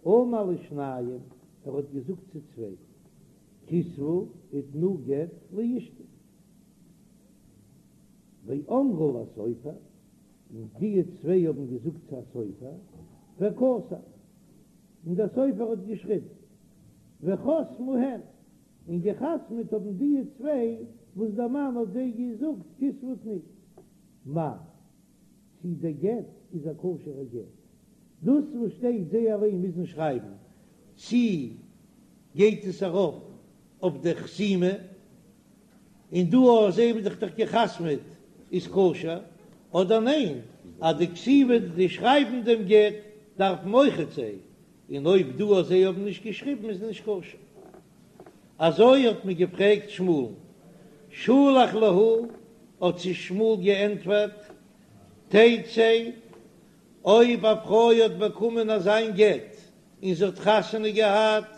אמר לשניים, ער האט געזאגט צו צוויי, כתבו ותנו גט לאשתי. ואמרו לסופר, און די צוויי האבן געזאגט צו א סופר, וכתב, און דער סופר האט געשריבן, וחתמו הן, און געחתמעט האבן די צוויי וואס דער מאן האט זיי געזאגט כתבו ותנו. מהו, צי דער גט איז א כשר'ער גט, דאס וואס שטייט זיי אליין מוזן שרייבן, צי גייט עס ארויף אויף דער חתימה, און דא אז זיי האבן זיך דאך געחתמעט איז כשר, אדער ניין אז די כתיבה די שרייבן דעם גט דארפן אויכעט זיי, און אויב דא אז זיי האבן נישט געשריבן איז נישט כשר. אזוי האט מען געפרעגט שמואל'ן, שלח להו, האט זיי שמואל געענטפערט, תצא, אויב א פרוי האט באקומען אזיין גט און זי האט חתונה געהאט,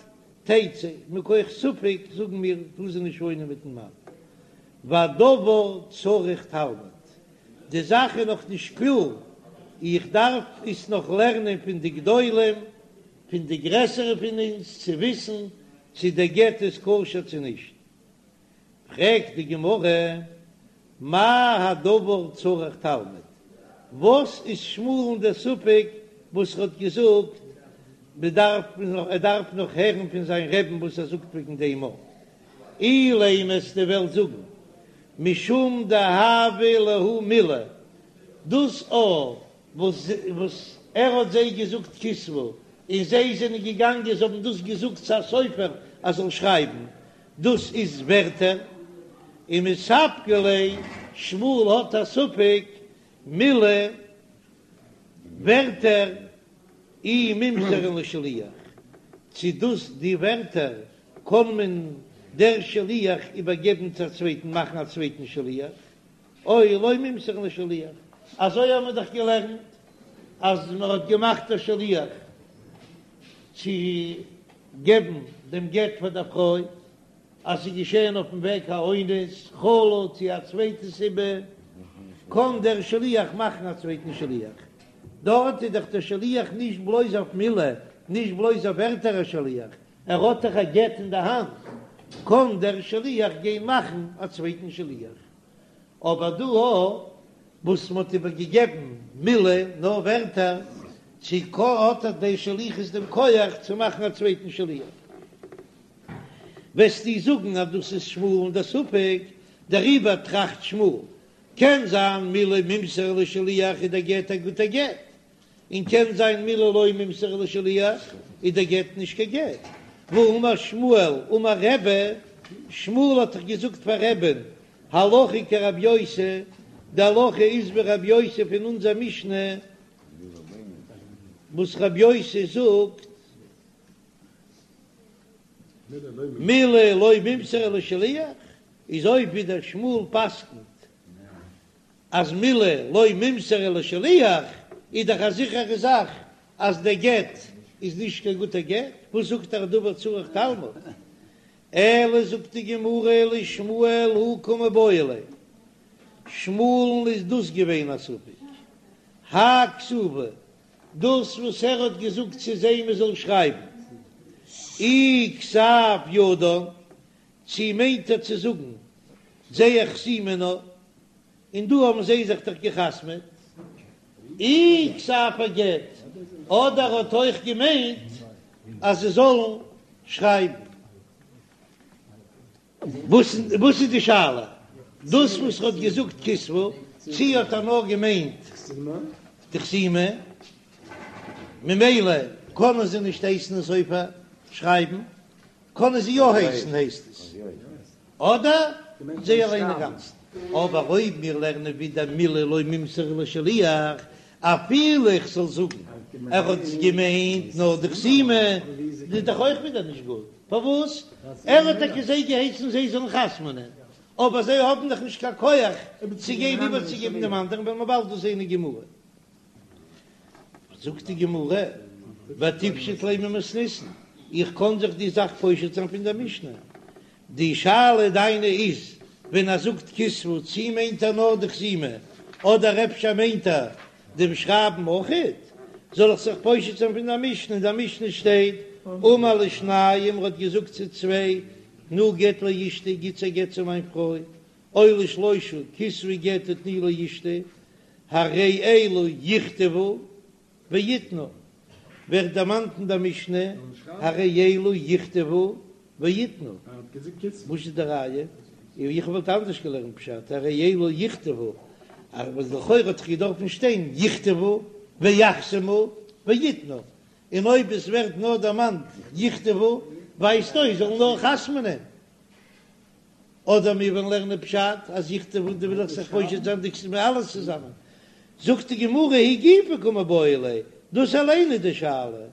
תצא, מכח ספק זאגן מיר טאר זי נישט וואוינען מיטן מאן, והדבר צריך תלמוד, די זאך איז נאך נישט קלאר, איך דארף עס נאך לערנען פון די גדולים, פון די גרעסערע פון אונז, צו וויסן צו דער גט איז כשר צו נישט. פרעגט די גמרא, מאי הדבר צריך תלמוד? וואס איז שמואל'ן דער ספק וואס ער האט געזאגט מ'דארף ער דארף נאך הערן פון זיין רעבן וואס ער זאגט וועגן דעם א אילימא וועסטו וועלן זאגן משום דהוה להו מילי דאס א וואס וואס ער האט זיי געזאגט כתבו און זיי זענען געגאנגען זיי האבן דאס געזאגט צו א סופר ער זאל שרייבן דאס איז ווערטער, ומספקא ליה, שמואל האט א ספק מילי ווערטער אי מימסרן לשליח, צו דאס די ווערטער קען מען דער שליח איבערגעבן צו א צווייטן מאכן א צווייטן שליח, או לא מימסרן לשליח, אזוי האבן מיר דאך געלערנט אז מען האט געמאכט א שליח צו געבן דעם גט פאר דער פרוי, אז ס'איז געשען אויפן וועג א אונס, חלה צו א צווייטע סיבה, קען דער שליח מאכן א צווייטן שליח. דארט איז דאך דער שליח נישט בלויז אויף מילה, נישט בלויז אויף ווערטער א שליח, ער האט דאך א גט אין די האנט, קען דער שליח גיין מאכן א צווייטן שליח. אבער דא וואס מ'האט איבער געגעבן מילי נאר ווערטער, צו האט ער די שליחות דעם כח צו מאכן א צווייטן שליח? וועסטו זאגן אז דאס איז שמואל'ן דער ספק, דעריבער טראכט שמואל, קען זיין מילי מימסרן לשליח איז דער גט א גוטער גט, און קען זיין מילי לא מימסרן לשליח איז דער גט נישט קיין גט. והאמר שמואל אמר רבי, שמואל האט דאך געזאגט פאר רבי'ן, הלכה כרבי יוסי, די הלכה איז ווי רבי יוסי פון אונזער משנה, וואס רבי יוסי זאגט, מילי לא מימסרן לשליח, איז אויב ווידער שמואל פסק'נט אז מילי לא מימסרן לשליח איז דאך א זיכערע זאך אז דער גט איז נישט קיין גוטער גט, וואס זאגט ער הדבר צריך תלמוד? אלא זאגט די גמרא לשמואל הא קמיבעיא ליה, שמואל'ן איז דאס געווען א ספק, האי כתיבה, דאס וואס ער האט געזאגט צו זיי מען זאל שרייבן אי כתב ידן, צי מיינט ער צו זאגן זייער חתימה נאר, און דא האבן זיי זיך דאך געחתמעט, אי כתב הגט, אדער האט אויך געמיינט אז זיי זאלן שרייבן. וואס וואס איז די שאלה? דאס וואס ער האט געזאגט כתבו, צי האט ער נאר געמיינט די חתימה, ממילא קענען זיי נישט הייסן א סופר שרייבן, קענען זיי יא הייסן הייסט עס, אדער זיי אליין אינגאנצן. אבער אויב מיר לערנען ווידער מילי לא מימסרן לשליח, אפילו איך זאל זאגן ער האט געמיינט נאר די חתימה. איז דאך אויך ווידער נישט גוט, פארוואס? ער האט טאקע זיי געהייסן זיי זאלן חתמ'נען, אבער זיי האבן דאך נישט קיין כח צו גיין איבערצוגעבן דעם אנדערן, וועלן מיר באלד דאס זען אין גמרא. זאגט די גמרא, ותיפשוט ליה ממתניתין, איך קען זיך די זאך פושט זיין פון דער משנה, די שאלה דיינע איז ווען ער זאגט כתבו צי מיינט ער נאר די חתימה אדער אפשר מיינט ער דעם שרייבן אויכעט, זאל איך זיך פושט זיין פון דער משנה, אין דער משנה שטייט אמר לשניים ער האט געזאגט צו צוויי תנו גט לאשתי גיטס א גט צו מיין פרוי, או לשלושה כתבו גט ותנו לאשתי, הרי אלו יכתבו ויתנו, ווערט דערמאנט אין דער משנה, הרי אלו יכתבו ויתנו, וואס איז די ראיה? איך וואלט אנדערש געלערנט פשט, הרי אלו יכתבו, אבער לכאורה האט דאך געדארפן שטיין יכתבו ויחתמו ויתנו, און אויב עס ווערט נאר דערמאנט יכתבו, ווייזט אויס זאלן נאר חתמ'נען. אדער מיר וועלן לערנען פשט אז יכתבו דא וויל איך זיך פושט זיין די כתיבה אלעס צוזאמען, זאגט די גמרא היא גופא קא מיבעיא ליה, דאס אליין איז די שאלה,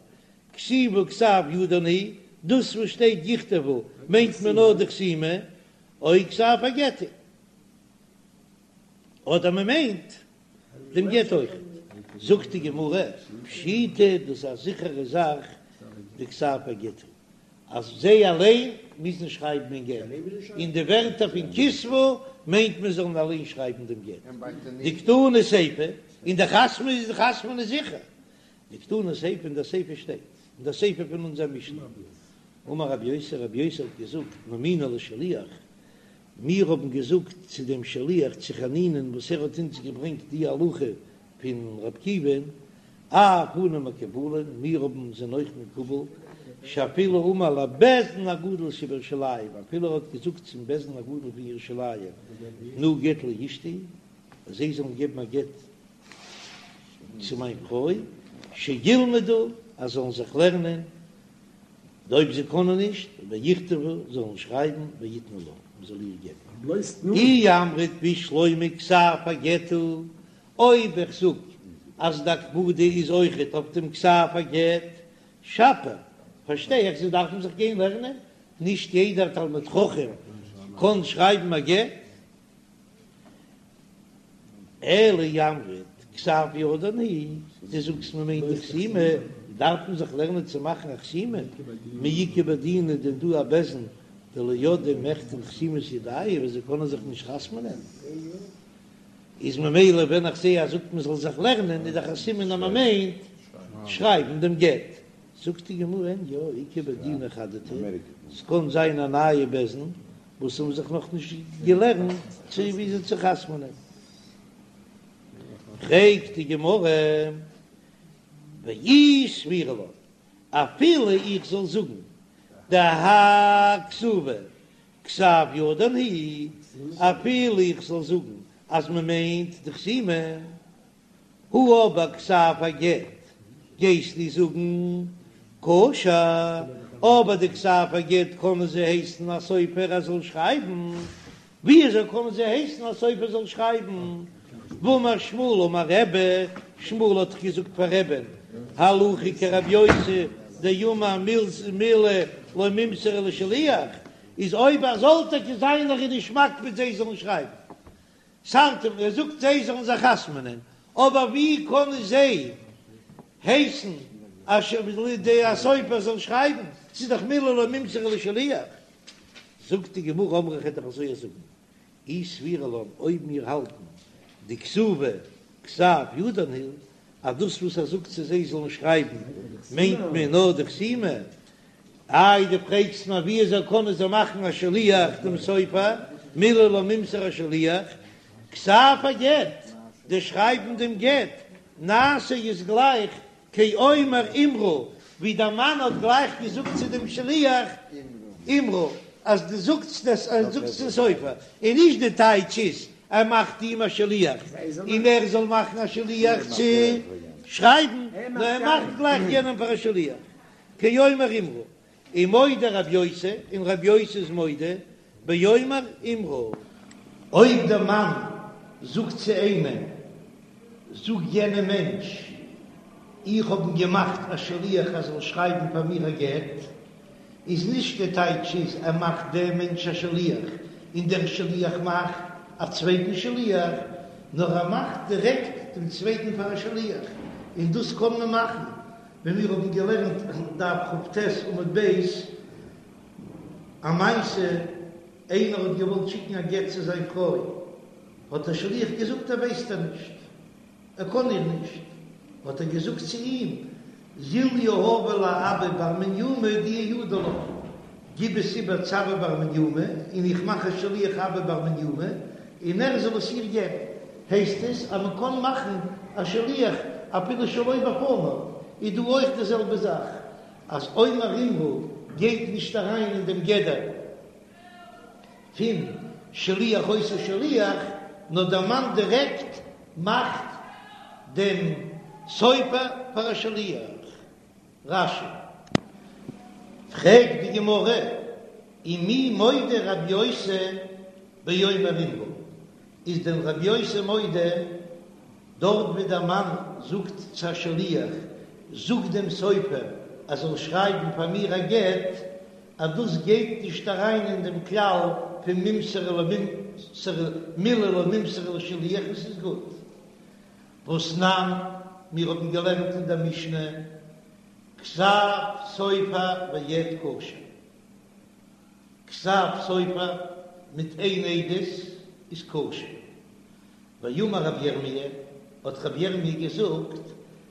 כתיבה כתב ידן היא, דאס וואס שטייט יכתבו מיינט מען נאר די חתימה, או כתב הגט הוא, אדער מען מיינט דעם גט אויך, זאגט די גמרא פשיטא דאס איז א זיכערע זאך דכתב הגט הוא. אז זיי אליין מוזן שרייבן אין גט, און די ווערטער פון כתבו מיינט מען זאלן אליין שרייבן דעם גט, דקתני סיפא, און די חתמ'ן איז די חתמ'ן איז זיכער, דקתני סיפא אין דער סיפא שטייט, אין דער סיפא פון אונזער משנה, אמר רבי יוסי, רבי יוסי האט געזאגט, נימינהו לשליח, מיר האבן געזאגט צו דעם שליח צו חנינא'ן וואס ער האט אונז געברענגט די הלכה פון רבי עקיבא'ן, אף אנו מקובלין, מיר האבן זענען אויך מקובל, שאפילו אמר לבית דין הגדול שבירושלים, אפילו ער האט געזאגט צום בית דין הגדול פון ירושלים, תנו גט לאשתי, אז זיי זאלן געבן א גט צו מיין פרוי, שילמדו, אז זאלן זיך לערנען, אויב זיי קענען נישט, ויכתבו, זאלן שרייבן, ויתנו לה, מען זאל איר געבן. אי אמרת בשלמא כתב הגט הוא, אויב איך זאג אז די הקפדה איז אויכעט אויף דעם כתב הגט, שפיר, פארשטיי איך זיי דארפן זיך גיין לערנען, נישט יעדער תלמיד חכם קען שרייבן א גט. אלא אי אמרת כתב ידן הוא, דו זאגסט מען מיינט די חתימה, דארף מען זיך לערנען צו מאכן א חתימה, מי איכא בי דינא דען דא א בית דין דלא ידעי מיחתם חתימת ידייהו וואס זיי קענען זיך נישט חתמ'נען, איז ממילא ווען איך זעה אז זאגט מען זאל זיך לערנען איז דאך א סימן אז מען מיינט שרייבן דעם גט, זאגט די גמרא אין יא איכא בי דינא חדתא, ס'קען זיין א נייע בית דין וואס האבן זיך נאך נישט געלערנט צו וויאזוי צו חתמ'נען. פרעגט די גמרא, ואי סבירא לן, אפילו איך זאל זאגן דהאי כתובה כתב ידן הוא, אפילו איך זאל זאגן אז מען מיינט די חתימה, הא אבער כתב הגט גייסטו זאגן כשר, אבער די כתב הגט קענען זיי הייסן א סופר ער זאל שרייבן, וויאזוי קענען זיי הייסן א סופר זאל שרייבן? והאמר שמואל אמר רבי, שמואל האט דאך געזאגט פאר רבי'ן, הלכה כרבי יוסי דאמר מילי לא מימסרי לשליח, איז אויב ער זאל טאקע זיין ער איז נישט מקפיד זיי זאלן שרייבן, סארט ער זאגט זיי זאלן זיך חתמ'נען, אבער ווי קענען זיי הייסן אז די סופר זאל שרייבן, ס'איז דאך מילי לא מימסרי לשליח. זאגט די גמרא אמרי כ'וועל דאך אזוי זאגן, אי סבירא לן אויב מיר האלטן דכתובה כתב ידן הוא, אז דאס וואס ער זאגט צו זיי זאלן שרייבן מיינט מען נאר די חתימה, איי דו פרעגסט מיר ווי אזוי קענען זיי מאכן א שליח דעם סופר, מילי לא מימסרי לשליח, כתב הגט, די שרייבן דעם גט, נעשה איז גלייך כאומר אמרו, ווי דער מאן האט גלייך געזאגט צו דעם שליח אמרו, אז דו זאגסט עס, אז דו זאגסט צום סופר, און נישט די טייטש איז ער מאכט אים א שליח און ער זאל מאכן א שליח צו שרייבן, נאר ער מאכט גלייך יענעם פאר א שליח, כאומר אמרו, ומודה רב יוסי, און רב יוסי איז מודה, באומר אמרו. אויב דער מאן זאגט צו איינעם, זאג יענעם מענטש. איך האב אים געמאכט א שליח ער זאל שרייבן פאר מיר א גט, איז נישט די טייטש איז ער מאכט דעם מענטש א שליח און דער שליח מאכט א צווייטן שליח, נאר ער מאכט דירעקט דעם צווייטן פאר א שליח, און דאס קען מען מאכן ווי מיר האבן געלערנט דף כ"ט עמוד ב', א מעשה, איינער האט געוואלט שיקן א גט צו זיין פרוי, האט דער שליח געזאגט ער ווייסט איר נישט, ער קען איר נישט, האט ער געזאגט צו אים, זיל יהביה לאבא בר מניומי דאיהו ידע לה, גיב עס איבער צו אבא בר מניומי, און איך מאך א שליח אבא בר מניומי, און ער זאל עס איר געבן. הייסט עס אז מען קען מאכן א שליח אפילו שלא בפניו, איז דא אויך די זעלבע זאך, אז אומר אמרו גייט נישט אריין אין דעם גדר פון שליח עושה שליח, נאר דער מאן דירעקט מאכט דעם סופר פאר א שליח. רש"י. פרעגט די גמרא, ומי מודה רבי יוסי באומר אמרו, איז דען רבי יוסי מודה דארט ווי דער מאן זאגט צו א שליח, זאג דעם סופר ער זאל שרייבן פאר מיר א גט, אז דאס גייט נישט אריין אין דעם כלל פון מימסרן למימסרן מילי לא מימסרן לשליח און ס'איז גוט. והתנן, מיר האבן געלערנט אין דער משנה, כתב סופר ועד כשר. כתב סופר מיט איין עדות איז כשר. ואמר רבי ירמי', האט רבי ירמי' געזאגט,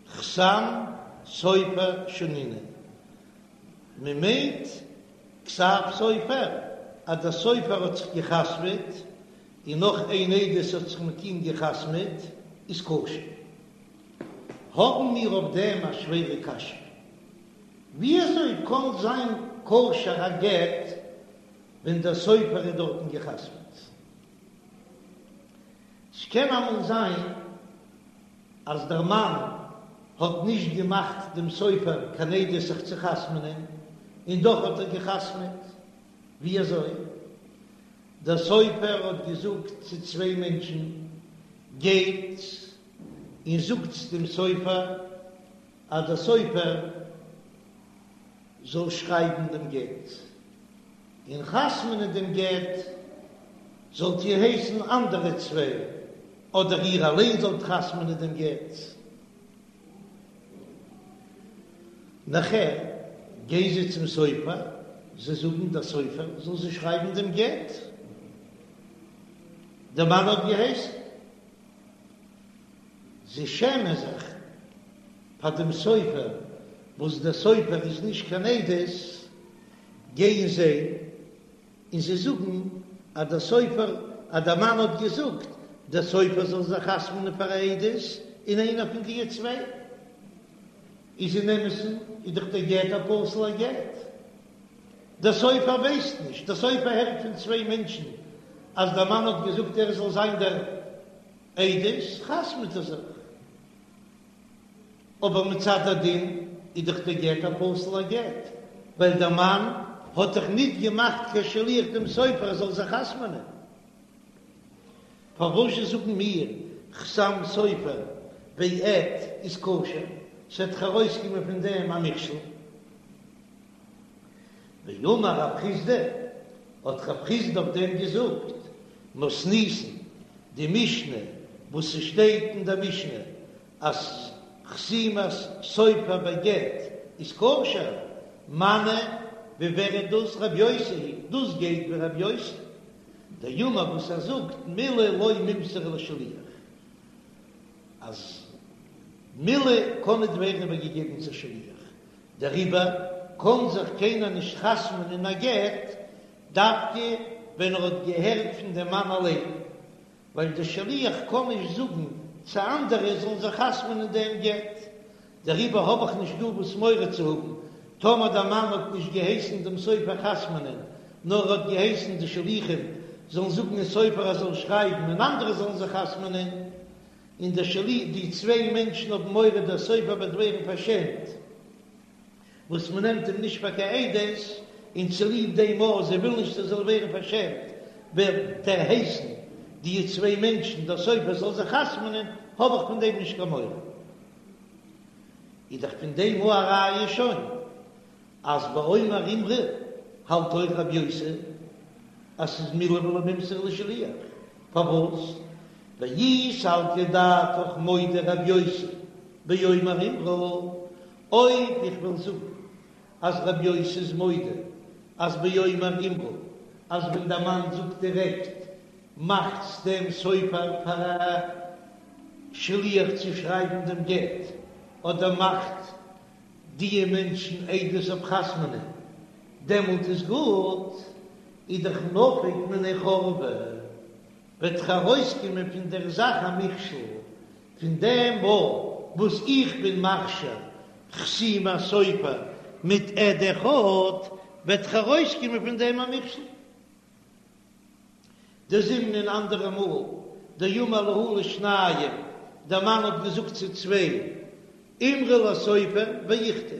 חתם סופר שנינן, מען מיינט כתב סופר אז דער סופר האט זיך גע'חתמ'עט און נאך איין עדות האט זיך מיט אים גע'חתמ'עט איז כשר. האבן מיר אויף דעם א שווערע קשיא, וויאזוי קען זיין כשר א גט ווען דער סופר איז דארטן גע'חתמ'עט? ס'קען אמאל זיין אז דער מאן האט נישט געמאכט דעם סופר קיין עדות זיך צו חתמ'נען, און דאך האט ער גע'חתמ'עט. ווי אזוי? דער סופר האט געזאגט צו צוויי מענטשן, גייטס און זאגטס דעם סופר אז דער סופר זאל שרייבן דעם גט, און חתמ'נען דעם גט זאלט איר הייסן אנדערע צוויי, אדער איר אליין זאלט חתמ'נען דעם גט. נאכער גייען זיי צום סופר, זיי זאגן דער סופר זאל זיי שרייבן דעם גט, דער מאן האט געהייסן. זיי שעמען זיך פאר דעם סופר, וואס דער סופר איז נישט קיין עדות, גייען זיי און זיי זאגן אז דער סופר, אז דער מאן האט געזאגט דער סופר זאל זיך חתמ'נען פאר א עדות, און איינער פון די צוויי איז אין אמת'ן איז דאך דער גט א פסול'ער גט. דער סופר ווייסט נישט, דער סופר הערט פון צוויי מענטשן אז דער מאן האט געזאגט ער זאל זיין דער עדות, חתמ'ט ער זיך. אבער מצד הדין איז דאך דער גט א פסול'ער גט, ווייל דער מאן האט דאך ניט געמאכט קיין שליח דעם סופר ער זאל זיך חתמ'נען. פארוואזשע זאגן מיר חתם סופר ועד איז כשר? ס'וועט דאך ארויסקומען פון דעם א מכשול. ואמר רב חסדא, האט רב חסדא אויף דעם געזאגט, מתניתין, די משנה וואס ס'שטייט אין דער משנה אז חתימת סופר בגט איז כשר, מני ווי ווער איז דאס רב יוסי היא, דאס גייט ווי רב יוסי דאמר וואס ער זאגט מילי לא מימסרן לשליח, אז מילי קען ניט ווערן איבערגעגעבן צו שליח, דעריבער קען זיך קיינער נישט חתמ'ן אין א גט דווקא ווען ער האט געהערט פון דעם מאן אליין, ווייל דער שליח קען נישט זאגן צו אנדערע זאלן זיך חתמ'ן אין דעם גט, דעריבער האב איך נישט דא וואס מורא צו האבן טאמער דער מאן האט נישט געהייסן דעם סופר חתמ'נען, נאר ער האט געהייסן די שליחים זאלן זאגן אין סופר ער זאל שרייבן און אנדערע זאלן זיך חתמ'נען, און דער שליח, די צוויי מענטשן האבן מורא דער סופר וועט ווערן פארשעמט וואס מען נעמט אים נישט פאר קיין עדות, און צוליב דעם אז זיי ווילן נישט ער זאל ווערן פארשעמט וועט ער הייסן די צוויי מענטשן דער סופר זאל זיך חתמ'נען, האב איך פון דעם נישט קיין מורא. איז דאך פון דעם א ראיה שוין אז באומר אמרו האלט אויך רבי יוסי אז ס'איז מילי ולא מימסרי לשליח, פארוואס? ואי סלקא דעתך מודה רבי יוסי באומר אמרו, אויב איך וועל זאגן אז רבי יוסי איז מודה אז באומר אמרו אז ווען דער מאן זאגט דירעקט מאכטס דעם סופר פאר א שליח צו שרייבן דעם גט, אדער מאכט דיע מענטשן עדות אויף חתמ'נען, דעמאלט איז גוט, איז דאך נפיק מינה חורבה, וועט דאך ארויסקומען פון דער זאך א מכשול, פון דעם מאל וואס איך בין מכשיר חתימת סופר מיט עד אחד, וועט דאך ארויסקומען פון דעם א מכשול. דזימנין אנדערע מאל, דאמר להו לשניים, דער מאן האט געזאגט צו צוויי, אמרו לסופר ויכתוב,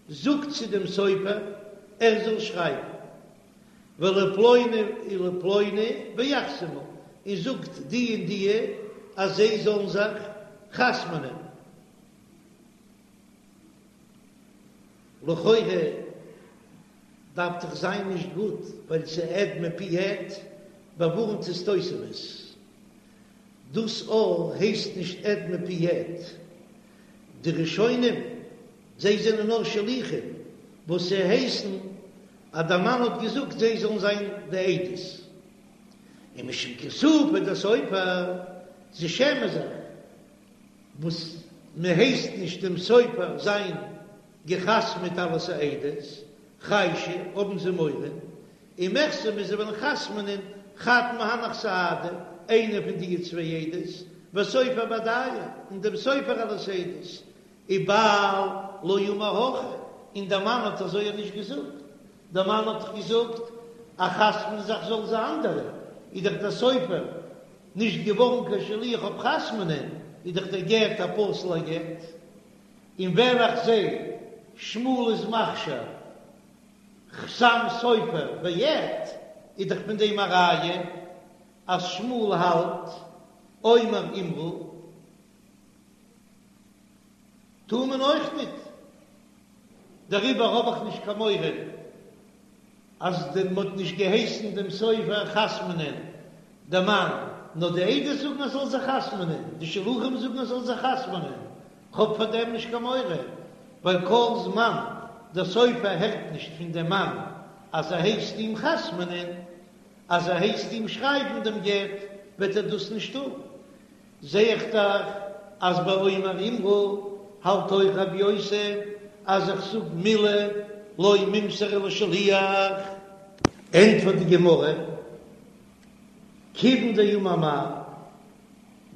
זאגט צו דעם סופר ער זאל שרייבן, ולפלוני ולפלוני ויחתמו, און זאגט די און די אז זיי זאלן זיך חתמ'נען. לכאורה דארף דאך זיין נישט גוט ווייל ס'איז עד מפי עד, באווארנט עס תוספות. דאס א הייסט נישט עד מפי עד. די ראשונים זיי זענען נאר שליחים וואס זיי הייסן אז דער מאן האט געזאגט זיי זאלן זיין די עדות. און משום כיסופא דסופר, זיי שעמען זיך וואס מען הייסט נישט דעם סופר זיין געחתמעט אלס א עדות, חיישי, האבן זיי מורא, ומיחתמי זיי וועלן חתמ'נען חד מהנך סהדא, איינער פון די צוויי עדות, וסופר בהדייהו, און דעם סופר אלס עדות, ובעל לא אמר הכי, און דער מאן האט אזוי נישט געזאגט, דער מאן האט דאך געזאגט אז חתמ'נען זיך זאלן זיי אנדערע, איז דאך דער סופר נישט געווארן קיין שליח אויף חתמ'נען, איז דאך דער גט א פסול'ער גט. און ווען איך זע שמואל איז מכשיר חתם סופר ועד, איז דאך פון דעם א ראיה אז שמואל האלט אומר אמרו טאר מען אויך ניט, דעריבער האב איך נישט קיין מורא. אז די מ'האט נישט געהייסן דעם סופר חתמ'נען די מאן, נאר די עדות זאגן ער זאל זיך חתמ'נען, די שלוחים זאגן ער זאל זיך חתמ'נען, כ'האב פאר דעם נישט קיין מורא, ווייל כל זמן דער סופר הערט נישט פון דעם מאן אז ער הייסט אים חתמ'נען, אז ער הייסט אים שרייבן דעם גט, וועט ער דאס נישט טון. זע איך דאך אז ביי אומר אמרו האלט אויך רבי יוסי אז איך זאג מילי לא מימסרי לשליח. ענטפערט די גמרא, כיוון דאמר מר,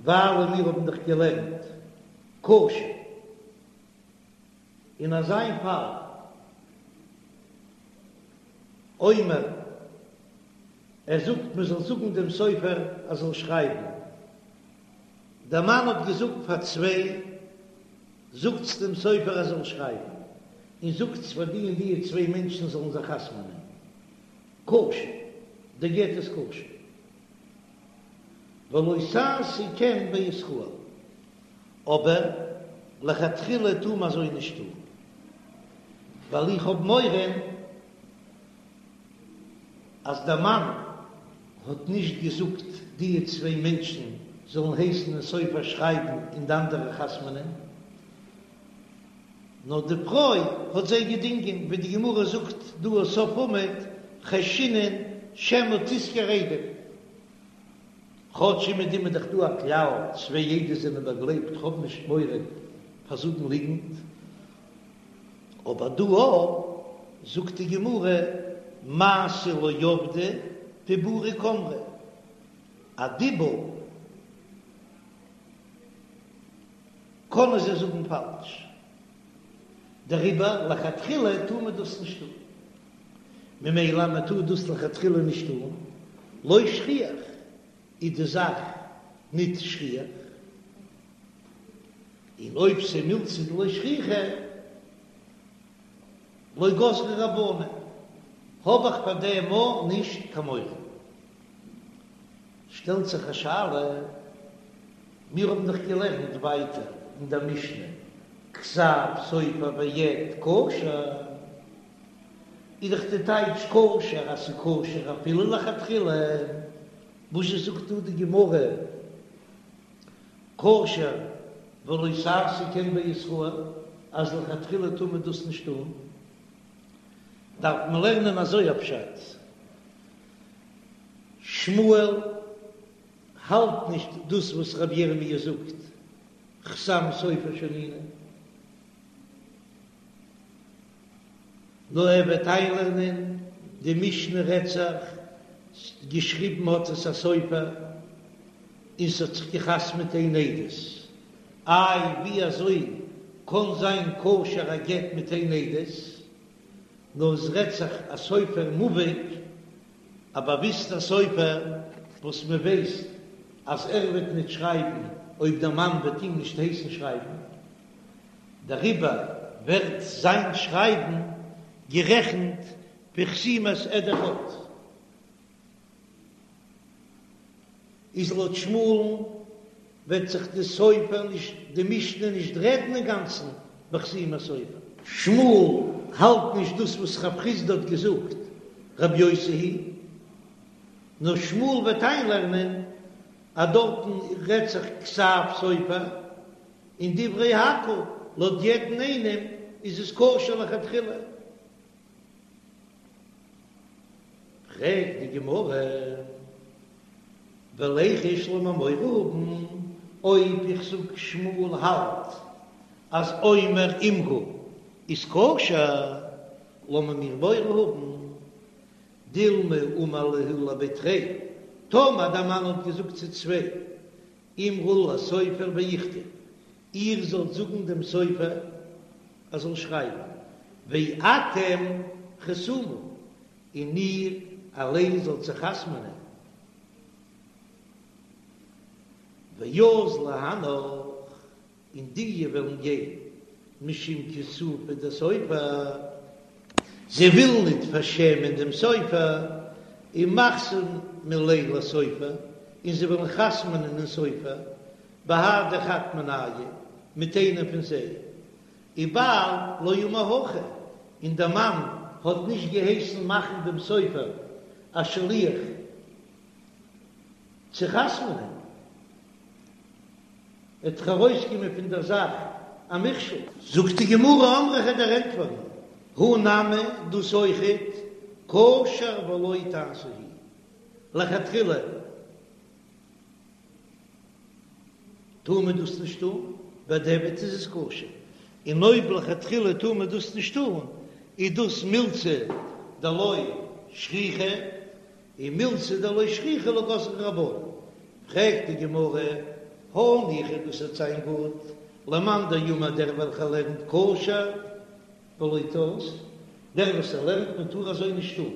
ווייל מיר האבן דאך געלערנט כשר אין אזיין פאל אומר ער זאגט מען זאל זאגן דעם סופר ער זאל שרייבן, דער מאן האט געזאגט פאר צוויי, זאגטס דעם סופר ער זאל שרייבן, און זאגטס פאר די און די צוויי מענטשן זאלן זיך חתמ'נען, כשר, דער גט איז כשר, ולא תעשו כן בישראל, אבער לכתחילה טאר מען אזוי נישט טון, ווייל איך האב מורא. אז דער מאן האט נישט געזאגט דיע צוויי מענטשן זאלן הייסן דעם סופר שרייבן און די אנדערע חתמ'נען, נאר די פרוי האט זיי געדינגען, ווי די גמרא זאגט דא אויף סוף עמוד, חיישינן שמא תשכור עדים, כאטש אומעדום איז דאך דא א כלל, צוויי עדות זענען באגלייבט, כ'האב נישט מורא פאר זאגן ליגנט. אבער דא זאגט די גמרא מעשה לא עבדי דיבורא קאמרי, א דיבור קענען זיי זאגן פאלש, דעריבער לכתחילה טאר מען דאס נישט טון, ממילא מען טאר דאס לכתחילה נישט טון, לא שכיח איז די זאך ניט שכיח. און אויב ס'מילתא דלא שכיחא לא גזרו רבנן, האב איך פאר דעם מאל נישט קיין מורא. שטעלט זיך א שאלה, מיר האבן דאך געלערנט ווייטער אין דער משנה. כתב סופר ועד כשר, איז דאך די טייטש כשר אז ס'איז כשר אפילו לכתחילה, וואזשע זאגט דא די גמרא כשר ולא תעשה כן בישראל אז לכתחילה טאר מען דאס נישט טון? דארף מען לערנען אזוי א פשט, שמואל האלט נישט דאס וואס רבי ירמי' זאגט, חתם סופר שנינו, נאר ער וועט איינלערנען די משנה רעדט זיך, געשריבן האט עס א סופר און ס'האט זיך געחתמעט איין עדות, איי ווי אזוי קען זיין כשר א גט מיט איין עדות, נאר עס רעדט זיך א סופר מובהק, א באוויסטער סופר וואס מען ווייסט אז ער וועט ניט שרייבן אויב דער מאן וועט אים נישט הייסן שרייבן, דעריבער ווערט זיין שרייבן גערעכנט ווי חתימת עד אחד. איז לויט שמואל'ן וועט זיך די סופר נישט די משנה נישט רעדן אינגאנצן בחתימת סופר. שמואל האלט נישט דאס וואס רב חסדא האט געזאגט רב יוסי היא, נאר שמואל וועט איינלערנען אז דארטן רעדט זיך כתב סופר, און דברי הכל לויט יעדן איינעם איז עס כשר לכתחילה. פרעגט די גמרא, וליחוש לאמיר מורא האבן, אויב איך זאג שמואל האלט אז אומר אמרו איז כשר, לאמיר מיר מורא האבן, דילמא אמר להו לבי תרי, טאמער דער מאן האט געזאגט צו צוויי, אמרו לסופר ויכתוב, איר זאלט זאגן דעם סופר ער זאל שרייבן, ואתם חתומו, און איר אליין זאלט זיך חתמ'נען, ואזלי הנך, און די וועלן גיין משום כיסופא דסופר, זיי ווילן ניט פארשעמען דעם סופר, ומחתמי ליה לסופר, און זיי וועלן חתמ'נען אין סופר, בהדי חד מינייהו, מיט איינעם פון זיי, ובעל לא אמר הכי, און דער מאן האט נישט געהייסן מאכן דעם סופר א שליח צו חתמ'נען, וועט דאך ארויסקומען פון דער זאך א מכשול. זאגט די גמרא אמרי כ'וועל דיר ענטפערן, הא נמי, דאס אויכעט, כשר ולא תעשה הוא, לכתחילה טאר מען דאס נישט טון, בדיעבד איז עס כשר, און אויב לכתחילה טאר מען דאס נישט טון, איז דאס מילתא דלא שכיחא, און מילתא דלא שכיחא לא גזרו רבנן. פרעגט די גמרא, הניחא דאס וועט זיין גוט, למאן דאמר דער וועלכער לערנט כשר ולא תעשה, דער וואס ער לערנט מען טאר אזוי נישט טון,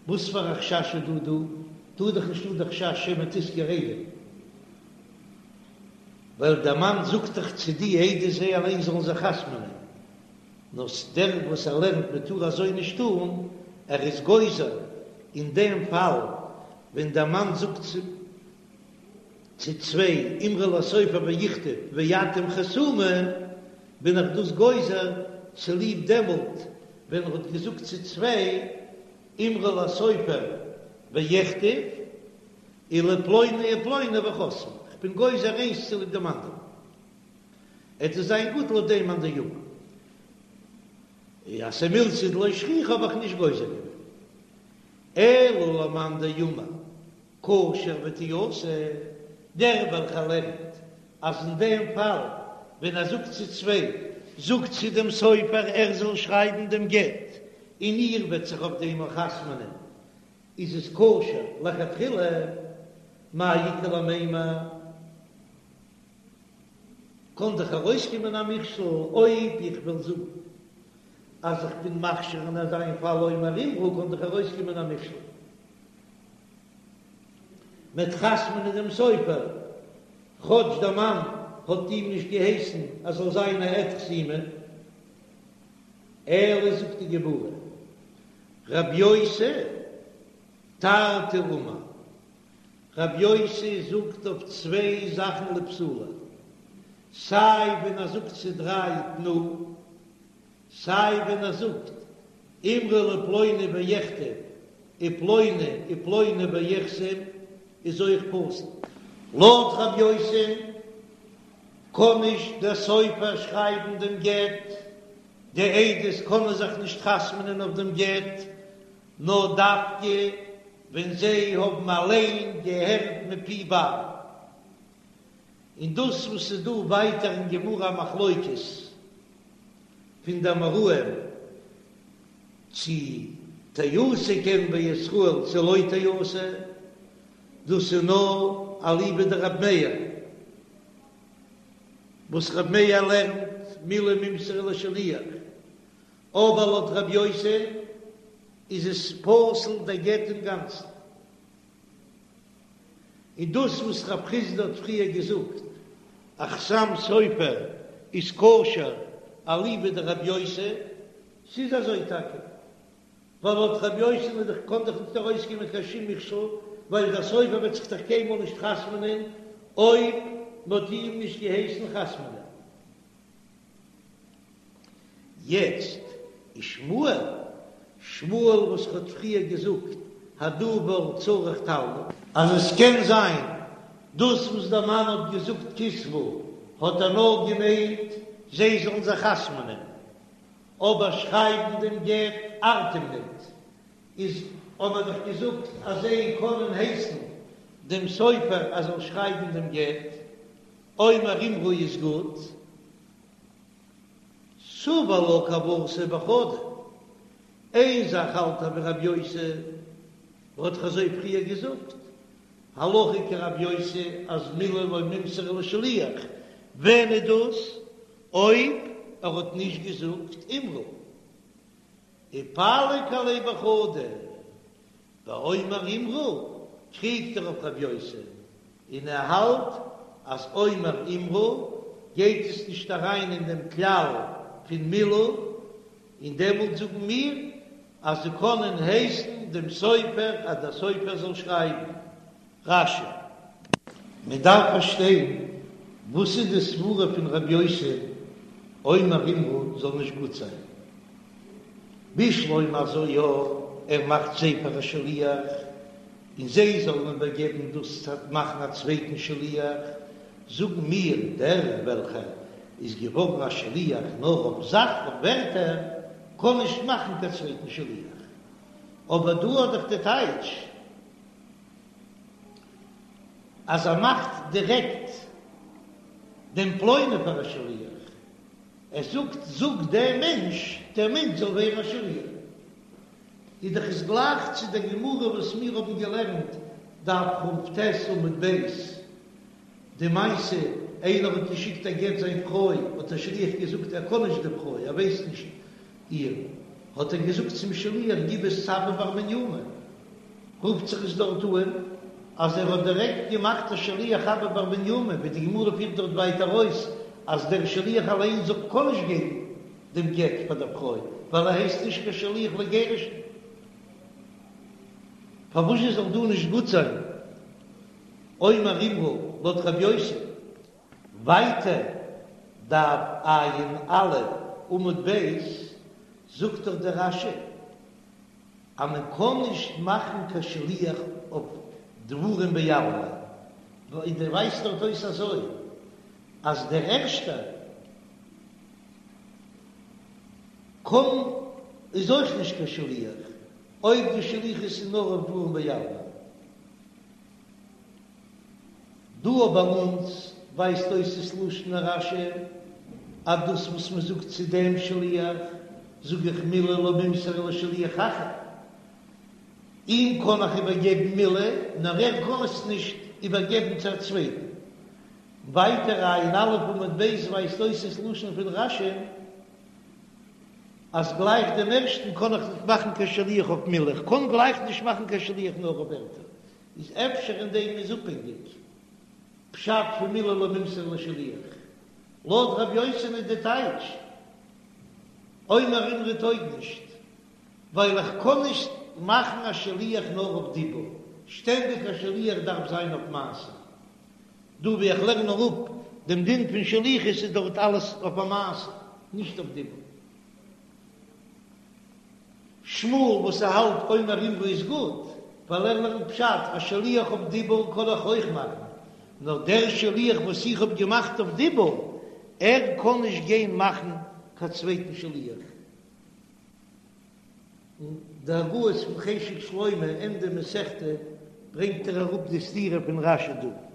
וואס פאר א חשש איז דא דא? דא איז דאך נישטא די חשש שמא תשכור עדים, ווייל דער מאן זאגט דאך צו די עדות זיי אליין זאלן זיך חתמ'נען, נאר דער וואס ער לערנט מען טאר אזוי נישט טון, ער איז גוזר אין דעם פאל ווען דער מאן זאגט צו צוויי אמרו לסופר ויכתוב ואתם חתומו, בין איך דאס גוזר צוליב דעמאלט ווען ער האט געזאגט צו צוויי אמרו לסופר ויכתוב ולפלוני ופלוני וחתמו, כ'בין גוזר איינס צוליב דעם אנדערן, עט עס זיין גוט לויט דעם מאן דאמר אז ס'מילתא דלא שכיחא האב איך נישט גוזר געווען, אלא למאן דאמר כשר ותיעשה, דער וועלכער לערנט אז אין דעם פאל ווען ער זאגט צו צוויי, זאגט צו דעם סופר ער זאל שרייבן דעם גט און איר וועט זיך אויף דעם אויך חתמ'נען, איז עס כשר לכתחילה, מאי איכא למימר? קען דאך ארויסקומען א מכשול אויב איך וועל זאגן אז איך בין מכשיר אין אזא פאל אומר אמרו קען דאך ארויסקומען א מכשול. מ'עט חתמ'נען דעם סופר, כאטש דער מאן האט אים נישט געהייסן אז זאל זיין א עד חתימה. אלא זאגט די גמרא, רב יוסי תרתי אמר, רב יוסי זאגט אויף צוויי זאכן לפסולא. סיי ווען ער זאגט צו דריי תנו, סיי ווען ער זאגט אמרו לפלוני ויכתוב ופלוני ופלוני ויחתום איז אויך פסול. לויט רב יוסי קען נישט דער סופר שרייבן דעם גט, די עדות קענען זיך נישט חתמ'נען אויף דעם גט, נאר דווקא ווען זיי האבן אליין געהערט מפי בעל. און דאס וואס איז דא ווייטער אין גמרא א מחלוקת פון די אמוראים צי תיעשה כן בישראל צי לא תיעשה, דאס איז נאר אליבא דרבי מאיר, וואס רבי מאיר לערנט מילי מימסרן לשליח, אבער לויט רבי יוסי איז עס פסול דער גט אינגאנצן. און דאס וואס רב חסדא האט פריער געזאגט אז חתם סופר איז כשר אליבא דרבי יוסי, ס'איז אזוי טאקע, ווייל לויט רבי יוסי איז דאך קען דאך נישט ארויסקומען קיין שום מכשול, ווייל דער סופר וועט זיך דאך קיינמאל נישט חתמ'נען אויב מ'האט איהם נישט געהייסן חתמ'נען. יעצט איז שמואל, שמואל וואס האט פריער געזאגט הדבר צריך תלמוד, אז עס קען זיין דאס וואס דער מאן האט געזאגט כתבו האט ער נאר געמיינט זיי זאלן זיך חתמ'נען, אבער שרייבן דעם גט ארט אים ניט, איז האט מען דאך געזאגט אז זיי קענען הייסן דעם סופר אז זאל שרייבן דעם גט, אומר אמרו איז גוט. סבר לה כוותיה בחדא, איין זאך האלט ער ווי רב יוסי, ער האט דאך אזוי פריער געזאגט, הלכה כרב יוסי אז מילי לא מימסרן לשליח, ווען איז דאס אויב ער האט נישט געזאגט אמרו? ופליג עליה בחדא, באומר אמרו קריגט ער אויף רב יוסי, און ער האלט אז אומר אמרו גייט עס נישט אריין אין דעם כלל פון מילי, און דעמאלט זאגן מיר אז זיי קענען הייסן דעם סופר אז דער סופר זאל שרייבן. רש"י. מען דארף פארשטיין וואס איז די סברה פון רב יוסי אומר אמרו זאל נישט גוט זיין, בשלמא אזוי יא, ער מאכט זיי פאר א שליח און זיי זאלן איבערגעבן דאס צו מאכן א צווייטן שליח, זאגן מיר דער וועלכער איז געווארן א שליח נאר אויף זאך אויף ווערטער קען נישט מאכן קיין צווייטן שליח, אבער דא האט דאך די טייטש. אז ער מאכט דירעקט דעם פלוני פאר א שליח, ער זאגט זאג דעם מענטש, דער מענטש זאל ווערן א שליח, איז דאך עס גלייך צו דער גמרא וואס מיר האבן געלערנט דף כ"ט עמוד ב', די מעשה, איינער האט געשיקט א גט זיין פרוי, האט דער שליח געזאגט ער קען נישט די פרוי, ער ווייסט נישט איר, האט ער געזאגט צום שליח גיב עס צו אבא בר מניומי, רופט זיך עס דארט אן אז ער האט דירעקט געמאכט א שליח אבא בר מניומי, ווי די גמרא פירט דארט ווייטער אויס אז דער שליח אליין זאל קען נישט געבן דעם גט פאר דער פרוי ווייל ער הייסט נישט קיין שליח לגירושין. פארוואס זאל דא נישט גוט זיין אומר אמרו לויט רב יוסי? ווייטער דף ע"א עמוד ב' זאגט דאך דער רש"י אז מען קען נישט מאכן קיין שליח אויף דברים בעלמא, און דער ווייזט דארט אויס אזוי אז דער ערשטער קען איז אויך נישט קיין שליח אויב די שליחות איז נאר אויף דברים בעלמא. דא ביי אונז ווייזט אויס דאס לשון הרש"י אז דאס וואס מען זאגט צו דעם שליח זאג איך מילי לא מימסרן לשליח אחר, אים קען איך איבערגעבן מילי נאר ער קען עס נישט איבערגעבן צו א צווייטן. ווייטער ע"א עמוד ב' ווייזט אויס דאס לשון פון רש"י אז גלייך דעם ערשטן קען איך נישט מאכן קיין שליח אויף מילי, איך קען גלייך נישט מאכן קיין שליח נאר אויף ווערטער. איז אפשר אין דעם איז אפהענגיק פשט פון מילי לא מימסרן לשליח? לויט רב יוסי'ן איז די טייטש אומר אמרו טויג נישט, ווייל איך קען נישט מאכן א שליח נאר אויף דיבור, שטענדיג א שליח דארף זיין אויף מעשה. דא ווי איך לערן אראפ. דעם דין פון שליחות איז דארט אלעס אויף א מעשה, נישט אויף דיבור. שמואל וואס ער האלט אומר אמרו איז גוט, ווייל ער לערנט פשט, א שליח אויף דיבור קען איך אויך מאכן, נאר דער שליח וואס איך האב געמאכט אויף דיבור, ער קען נישט גיין מאכן קיין צווייטן שליח. אין די הגהות פון חשק שלמה ענדע מסכתא ברענגט ער אראפ די סתירה פון רש"י דא.